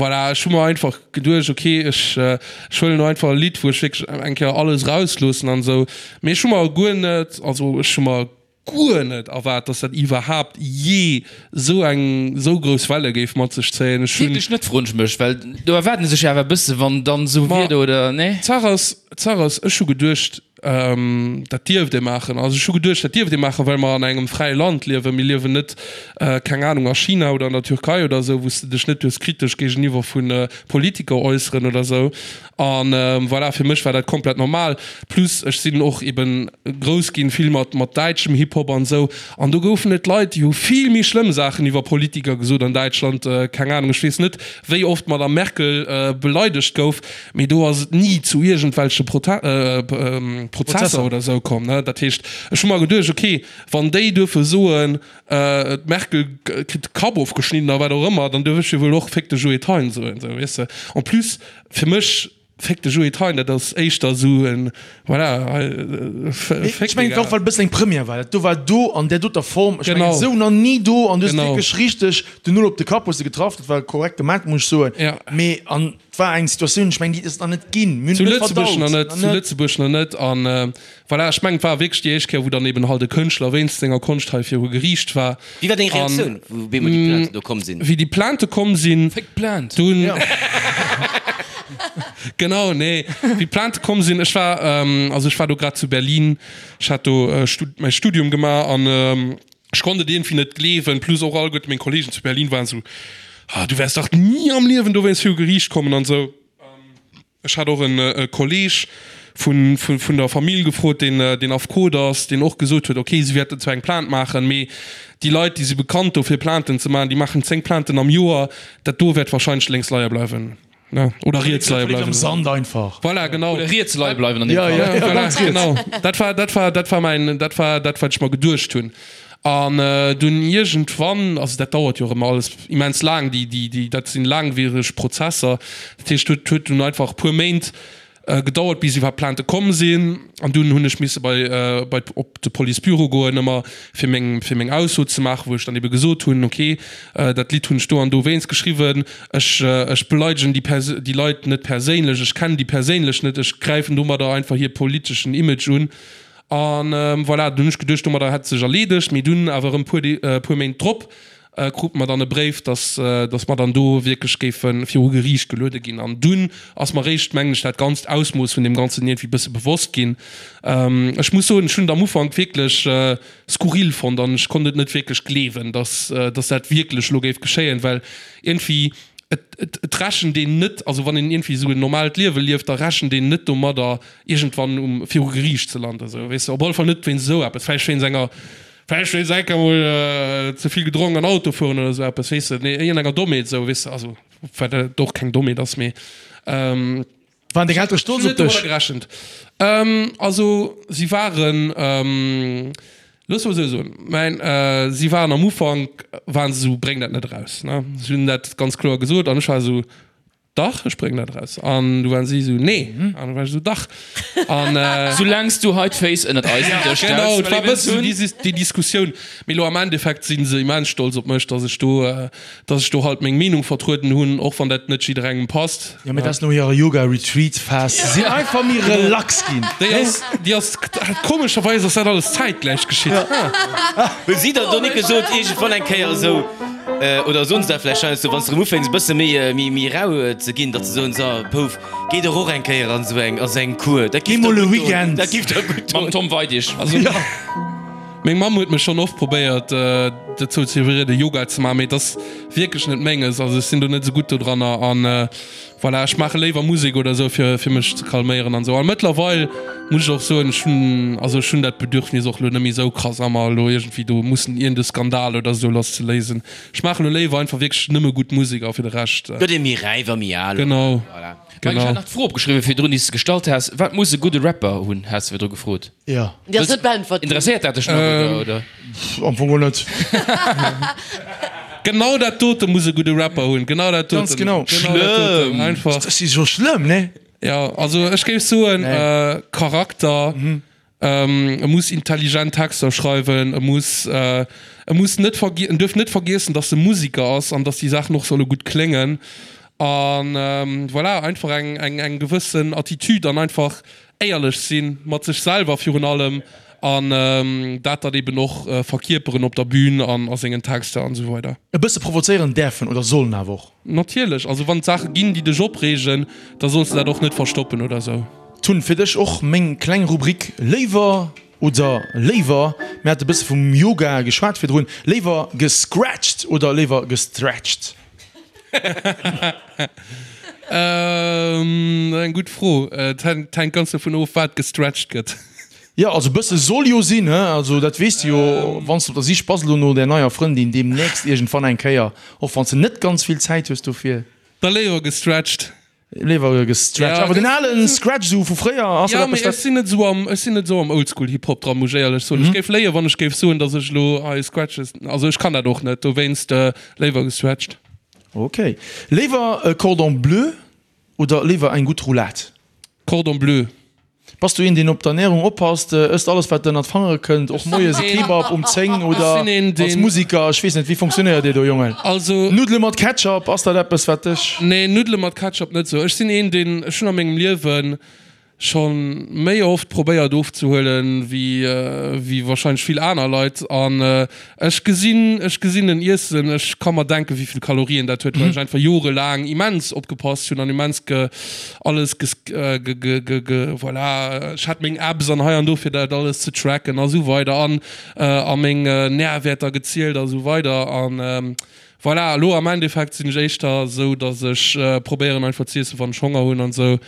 D: voilà, ech hu mer einfach geduecht, ok, ech ech huelen elo einfach e Lidd, wou ech wierklech eng Kéier alles erausloossen an esou. Mee ech hu mer guer net, also ech hu mer guer net erwaart, dass dat iwwerhaapt jee esou eng esou grouss Welle géif mat sech zéien. Ech hunn.
E: Wierklech net, froen ech mech, well do erwaarden se sech jo awer e bësse wann dann esou
D: Ma
E: Wieder, oder nee?
D: d'Saach ass, d'Saach ass, ech hu geduecht, Dat dierft ee maachen. Also ech hu geduecht, dat dierft ee maachen, well mer an engem fräie Land liewen. Mir liewen net, keng Anung, a China oder an der Türkei oder esou, wou s de dech net duerfs kritesch géigeniwwer vu Politiker äusseren oder esou. A voilà, fir mech war dat komplett normal. Plus ech sinn och eben grouss ginn, vill mat mat däitschem Hip-Hop an esou. An do goufen et Leit, déi hu vill méi schlëmm Saachen iwwer Politiker gesot an Däitschland. Keng Anung, ech weess net, wéi oft d'Madame Merkel beleidegt gouf. Mee do ass et ni zu iergendwelche Prozesser oder esou komm. Dat heescht, ech hu mer geduecht, okay, wann déi duerfe soen, d'Merkel kritt de Kapp ofgeschnidden a wat och ëmmer, dann duerf ech jo wuel och Féck de Joe Thein soen, esou, weess de. En plus, fir mech, Féck de Joe Thein, dat ass éischter esou en, voilà,
C: Féck, Ech mengen, et war och, well et e bëssen eng Première war. Dat do war do an där doter Form, ech mengen, esou nach ni do an du hues wierklech richteg den Null op de Kapp hues de getraff. Dat war korrekt gemaach, muss ech soen. Mee an. Et war eng Situatioun, ech mengen, déi huet et nach net ginn. Mir hunn
D: Zu
C: et net
D: Lëtzebuerg
C: verdaut.
D: nach net,
C: Nach
D: zu
C: net.
D: Lëtzebuerg nach net. An voilà, ech mengen, et war wierklech déi éischt Kéier, wou dann eben halt e Kënschtler wéinst senger Konscht hei viru Geriicht war.
B: Wéi war deng
D: An
B: Reaktioun, wou op eemol déi Plainten do komm sinn?
D: wéi déi Plainte komm sinn,
E: Féck d'Plainte!
D: dunn, genau, nee, wéi d'Plainte komm sinn, ech war, also ech war do grad zu Berlin, ech hat do Stud-, mäi Studium gemaach an Ech konnt et iergendwéi net gleewen, plus och alleguerte meng Kollegen zu Berlin waren esou, Ah, du wäers dach ni am Liewen dowéinst viru Geriicht kommen an esou. Ech hat och en Kolleg. Vun, vun der Famill gefrot, deen, deen Affekot ass, deen och gesot huet, ok, si wäerten zwar eng Plainte maachen, mee déi Leit, déi si bekannt dofir Plainten ze maachen, déi maachen 10 Plainten am Joer, dat do wäert wahrscheinlech lénks leie bleiwen, ne, oder riets leie bleiwen.
C: Am Sand einfach.
D: Voilà, genau.
E: Oder riets leie bleiwen an deem Fall.
D: Ja, voilà, genau. Dat war, dat war, dat war mäin, dat war dat, wat ech mer geduecht hunn. An dunn iergendwann, also dat dauert jo och ëmmer alles immens laang, déi, déi, déi, dat sinn laangwiereg Prozesser, dat heescht, huet, huet dunn einfach e puer Méint gedauert bis iwwerhaapt Plainte komm sinn an dunn hunn ech misse bei bei op de Policebüro goen ëmmer fir meng fir meng Ausso ze maachen, wou ech dann ebe gesot hunn, ok dat Lidd hunn ech do an do wéinst geschriwwen, ech ech beleidegen déi Pers déi Leit net perséinlech, ech kennen déi perséinlech net, ech gräifen domadder einfach hir politeschen Image un an voilà. Dunn hunn ech geduecht domadder hätt et sech erleedegt, mee dunn awer erëm puer puer Méint drop krute mer dann e Bréif, dass, dass mer dann do wierklech géife viru Geriicht geluede ginn. An dunn ass mer eréischt, mengen ech, dat ganzt Ausmooss vun deem Ganzen iergendwéi e bësse bewosst ginn. Ech muss soen, ech hunn et am Ufank wierklech skurril fonnt an ech konnt et net wierklech gleewen, dass, dass dat wierklech elo géif geschéien, well iergendwéi, et, et, et rechent een net, also wann een iergendwéi esou en normaalt Liewe lieft, da rechent een net domadder, iergendwann um, viru Geriicht ze landen, esou, weess de. Op alle Fall net wéinst esou eppes, vläicht wéinst enger, Vläicht wéinst enker mol ze vill gedronk an Auto fueren oder esou eppes, weess de, nee, iergendenger Dommheet esou, weess de, also wat dat och keng Dommheet ass, mee.
C: Waren deng Eltere stolz op dech?
D: Gerechent. Also si waren, looss mol esou soen, mäin, si waren am Ufank waren se esou, bréng dat net eraus, ne, si hunn dat ganz kloer gesot an ech war esou, Dach, ech bréngen dat eraus. An du waren si esou, Nee. An du war ech esou, Dach.
E: An. Soulaangs du hei d'Féiss ënnert eisen Dësch stells,
D: Genau, et war e bëssen esou déi Diskussioun. Mee elo am Endeffekt si se immens stolz op mech, dass ech do, dass ech do halt meng Meenung vertrueden hunn, och wann dat net jidderengem passt.
C: Jo, mee dat ass no hirer Yoga-Retreat-Phas. Si sinn einfach méi relax ginn.
D: Déi ass, déi ass, komescherweis ass dat alles zäitgläich geschitt.
B: Hu si der do nik gesot iergendwann eng Kéier esou, Oder soen se dat vläicht heiansdo, wann s de erëm ufänks e bësse méi, méi, méi rau ze ginn, datt se soen, So, Pouf, géi dach och eng Kéier an esou eng, a sou eng Kur, dat
C: Géi
B: giff der
C: mol e
B: gutt doen,
C: Weekend.
B: dat giff der gutt
E: Mam
B: doen.
E: Tom Weidig.
D: Also, meng Mamm huet mech schonn oft probéiert dozou ze iwwerrieden, Yoga ze maachen, mee et ass wierklech net menges. Also ech sinn do net esou gutt dodranner an Voilà, ech maache léiwer Musek oder esou fir fir mech ze calméieren an esou. A mëttlerweil muss ech och soen, ech hunn, also ech hunn dat Bedürfnis och elo net méi esou krass a mer elo iergendwéi do mussen iergend e Skandal oder esou lasszeléisen. Ech maache elo léiwer einfach wierklech nëmme gutt Musek a fir de Rescht.
B: Gëtt ee méi räif a méi al.
D: Genau,
B: Voilà.
E: Mike, ech
D: genau.
E: hat nach d'Fro opgeschriwwen virdrun, déi s de gestallt has, Wat muss e gudde Rapper hunn, has de virdru gefrot.
C: Jo.
F: Déi ass net beäntwert ginn.
E: Interesséiert dat dech nach, oder, oder?
C: Pff, am Fong och net.
D: Genau dat dote muss e gudde Rapper hunn. Genau dat doten.
C: Ganz genau.
D: Genau dat doten. Einfach.
C: Dat ass jo schlëmm, ne?
D: Ja, also ech géif soen, äh, Charakter, ähm, e muss intelligent Texter schreiwen, e muss, äh, e muss net vergie-, en duerf net vergiessen, dass e Musiker ass an dass déi Saachen och solle gutt kléngen. An, ähm, voilà, einfach eng, eng, eng gewëssen Attitude an einfach Éierlech sinn, mat sech selwer virun allem, an dat dann eben och verkierperen op der Bühn an a sengen Texter an esou weider.
C: E bësse provozéieren däerfen oder sollen awer och.
D: Natierlech, also wann et Saache ginn, déi dech opreegen, da solls de dat och net verstoppen oder esou.
C: Tun, fir dech och meng kleng Rubrik Léiwer oder léiwer, mir hate bësse vum Yoga geschwat virdrun, léiwer gescratcht oder léiwer gestretcht?
D: Eng gutt Fro. Et hänkt ganz dovun of, wat gestretcht gëtt.
C: Jo, also e bësse soll jo sinn, he? Also dat weess de jo, wann s de op der Sich bass elo no där neier Frëndin deemnächst iergendwann eng Kéier, och wann s de net ganz vill Zäit hues dofir.
D: Da léiwer gestretcht.
C: Léiwer gestretcht.
D: Ja,
C: Awer den
D: ganz
C: alen Scratch esou vu fréier, ass dat
D: Ja, mee
C: eppes
D: ech
C: wat.
D: sinn net esou am, ech sinn net esou am Oldschool Hip Hop dran, muss ech éierlech soen. Ech géif léien, wann ech géif soen, datt ech elo hei Scratches, also ech kann dat och net, dowéinst léiwer gestretcht.
C: Ok. Léiwer e Cordon bleu oder léiwer eng gutt Roulade?
D: Cordon bleu.
C: Bass du een deen op d'Ernährung oppasst, ësst alles wat ënnert d'Fangere kënnt, och moies e Kebab um 10 oder als Musiker, ech weess net, wéi funktionéiert dir do Jongen?
D: Also.
C: Nuddele mat Ketchup, ass dat eppes wat dech.
D: Nee, Nuddele mat Ketchup net sou. Ech sinn een deen, ech hunn a mengem Liewen Schon méi oft probéiert ofzehuelen wéi wéi wahrscheinlech vill aner Leit an ech gesinn ech gesinn en Iessen, ech ka mer denken wéivill Kalorien dat huet, well ech einfach jorelaang immens opgepasst hunn an immens ge alles ges ge ge ge ge voilà ech hat meng Apps an hei an do fir dat alles ze tracken a sou weider an a meng Nährwäerter gezielt a sou weider an voilà elo am Endeffekt sinn ech éischter sou dass ech probéieren einfach z'iessen wann ech Honger hunn an sou.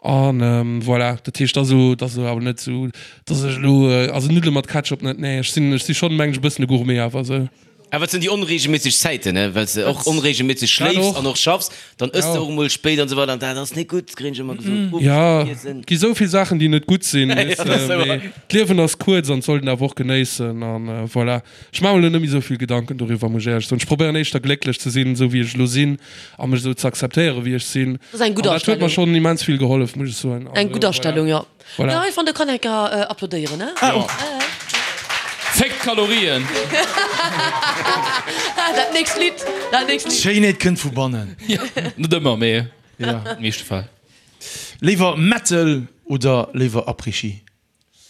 D: An voilà, dat heescht, dat ass elo, dat ass elo awer net esou, dass ech elo, also Nuddele mat Ketchup net, nee, ech sinn, ech si schonn, meng ech, e bëssen e Gourmet awer esou.
B: Awer et sinn déi onregelméisseg Zäiten, ne, well s de och onregelméisseg schléifs an och schaffs, dann ëss de och emol spéit an esou weider an dat ass net gutt, kréien ech ëmmer gesot. Uebst
D: Jo, et gi sou vill Saachen, déi net gutt sinn, weess de, mee d'Liewen ass kuerz an et sollt een awer och genéissen an voilà. Ech maache mer elo net méi sou vill Gedanken doriwwer, muss ech éierlech soen. Ech probéieren éischter glécklech ze sinn, esou wéi ech elo sinn a mech esou ze akzeptéieren, wéi ech sinn.
F: Dat ass eng gutt
D: An dat huet mer
F: Astellung.
D: schonn immens vill gehollef, muss ech soen.
F: Eng
D: Also
F: gutt
D: voilà.
F: Astellung, jo.
D: Voilà.
F: Jo, ech fannen, do kann een enker applaudéieren, ne?
C: Ah,
E: Féck d'Kalorien!
F: Dat nächst Lidd, dat nächst Lidd.
C: D'Schéinheet kënnt vu bannen.
E: Net ëmmer, mee
C: Ja.
E: an de meeschte Fäll.
C: Léiwer Metal oder léiwer Après-Ski?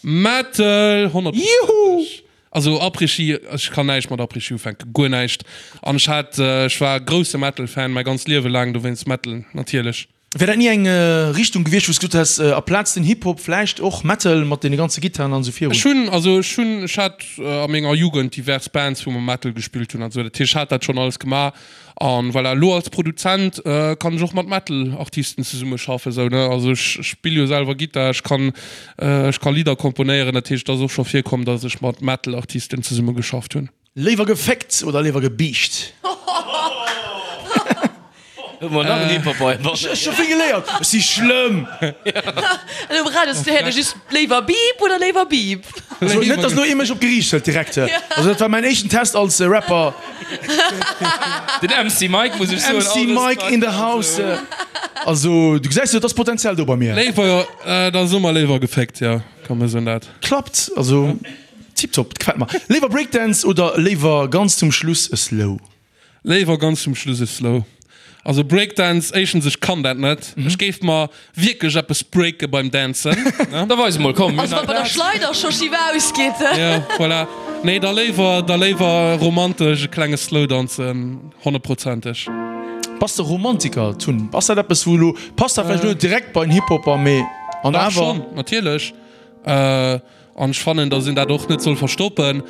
D: Metal, 100%.
C: Juhu!
D: Also Après-Ski, ech kann näischt mat Après-Ski ufänken, guer näischt. An ech hat, ech war grousse Metal-Fan mäi ganzt Liewe laang, dowéinst Metal natierlech.
C: Wär dat ni eng Richtung gewiescht, wou s gesot häss, aplaz den Hip-Hop vläicht och Metal mat deene ganze Gittaren an esou virun?
D: Ech hunn, also ech hunn, ech hat a menger Jugend divers Bands, wou mer Metal gespillt hunn an esou, dat heescht, ech hat dat schonn alles gemaach. An voilà, elo als Produzent kann ech och mat Metal-Artisten zesummeschaffen, esou ne, also ech spill jo selwer Gittar, ech kann, ech ka Lidder komponéieren, dat heescht, et ass och scho virkomm, datt ech mat Metal-Artisten zesummegeschafft hunn.
C: Léiwer geféckt oder léiwer gebiischt?
B: Hu mer nach en Hip-Hopper heibannen?
C: Ech hu vill geléiert, ech si schlëmm.
F: An um Radio ass de just léiwer Beep oder léiwer Beep?
C: Also net, dass elo ee mech op d'Geriicht hëlt direkt. Also dat war mäin éischten Test als Rapper.
E: Den MC Mike muss ech soen.
C: MC Mike in the house. Also du gesäis jo, et ass Potenzial do bei mir.
D: Léiwer, da soe mer léiwer geféckt, jo, komm mir soen dat.
C: Klappt, also. Tiptop, gefällt mer. Léiwer Breakdance oder léiwer ganz zum Schluss e Slow?
D: Léiwer ganz zum Schluss e Slow. Also Breakdance, éischtens ech kann dat net, ech géif mer wierklech eppes breake beim Dancen, ne?
E: Da weis emol, komm.
F: Also wann bei der Schleider scho schief ausgeet.
D: Jo, voilà. Nee, da léiwer, da léiwer romantesch e klenge Slow danzen, honnertprozenteg.
C: Bass de Romantiker, Tun? Ass dat eppes wou elo, passt dat vläicht elo net direkt bei en Hip-Hopper, mee an
D: Dach
C: awer?
D: schonn, natierlech. An ech fannen, dass een dat och net soll verstoppen.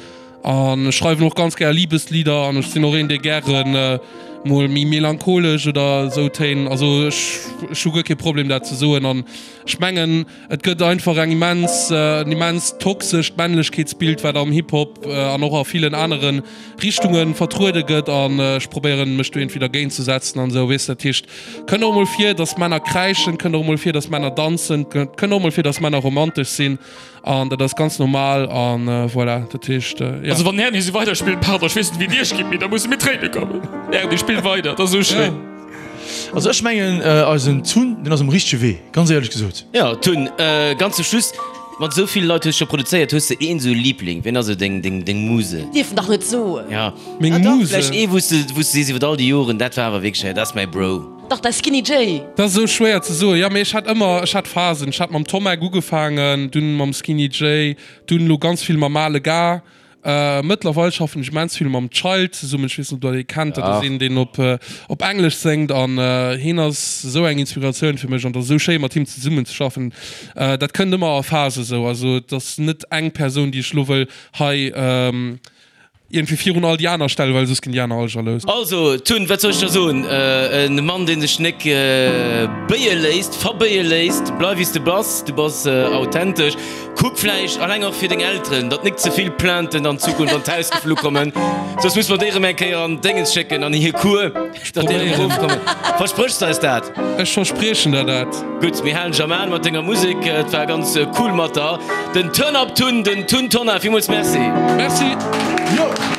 D: An ech schreiwen och ganz gär Liebeslieder an ech sinn och een, dee gären mol méi melancholesch oder esou Téin, also ech ech hu guer kee Problem dat ze soen. An ech mengen, et gëtt einfach eng immens, en immens toxescht Männlechkeetsbild, wat am Hip-Hop an och a villen anere Richtunge vertruede gëtt. An ech probéieren, mech do iergendwéi dergéint ze setzen an esou, weess de. Dat heescht, kënnt och emol vir, dass Männer kräischen, kënnt och emol vir, dass Männer danzen, kënnt och emol vir, dass Männer romantesch sinn. An dat ass ganz normal an voilà, dat heescht, jo.
E: Also wann den Erny esou weider spillt, pardon, ech weess net wéi et iech geet, mee da musse mir tréine kommen. Erny, spill weider, et ass esou schéin.
C: Also ech mengen eisen Tun, deen ass um richtege Wee, ganz éierlech gesot.
B: Jo Tun, ganz zum Schluss, mat esou ville Leit hues scho produzéiert, hues de een esou Liebling? Wien ass esou deng deng deng Muse?
F: Dierf en dach net soen.
B: Ja,
D: Meng
B: ah dach,
D: Muse?
B: vläicht ee wou s de wou s de sees iwwer all déi Joren, dat war awer wierklech, dat ass mäi Bro.
F: Dach, däi Skinny Jay.
D: Dat ass esou schwéier ze soen. Jo, mee ech hat ëmmer, ech hat Phasen. Ech hat mam Tommek ugefaangen, dunn mam Skinny Jay, dunn elo ganz vill mam Ale Gar. Mëttlerweil schaffen ech immens vill mam Child zesummen. Ech weess net, ob der dee kennt. Dat ass een, deen op op Englesch séngt an hien ass esou eng Inspiratioun fir mech an et ass esou schéi mat him zesummen ze schaffen. Dat kënnt ëmmer a Phase esou. Also et ass net eng Persoun, déi ech elo wëll hei Iergendwéi virun all déi aner stellen, well soss ginn déi aner all jalous.
B: Also, Tun, wat soll ech der soen? En Mann, dee sech nek béie léisst, verbéie léisst. Bleif wéi s de bass, du bass authentesch. Kuck vläicht, alleng och fir deng Elteren, datt nek ze vill Plainten an Zukunft an d'Haus geflu kommen, soss muss mer déi erëm eng Kéier an d'Déngens schécken, an hir Cour, datt déi erëm erofkommen. Verspréchs de eis dat?
D: Ech verspriechen der dat.
B: Gutt, mir halen dech am An mat denger Musek. Et war ganz cool mat der. Den Turn Up Tun, den Tun Tonnar, villmools Merci.
D: Merci.
C: Jo.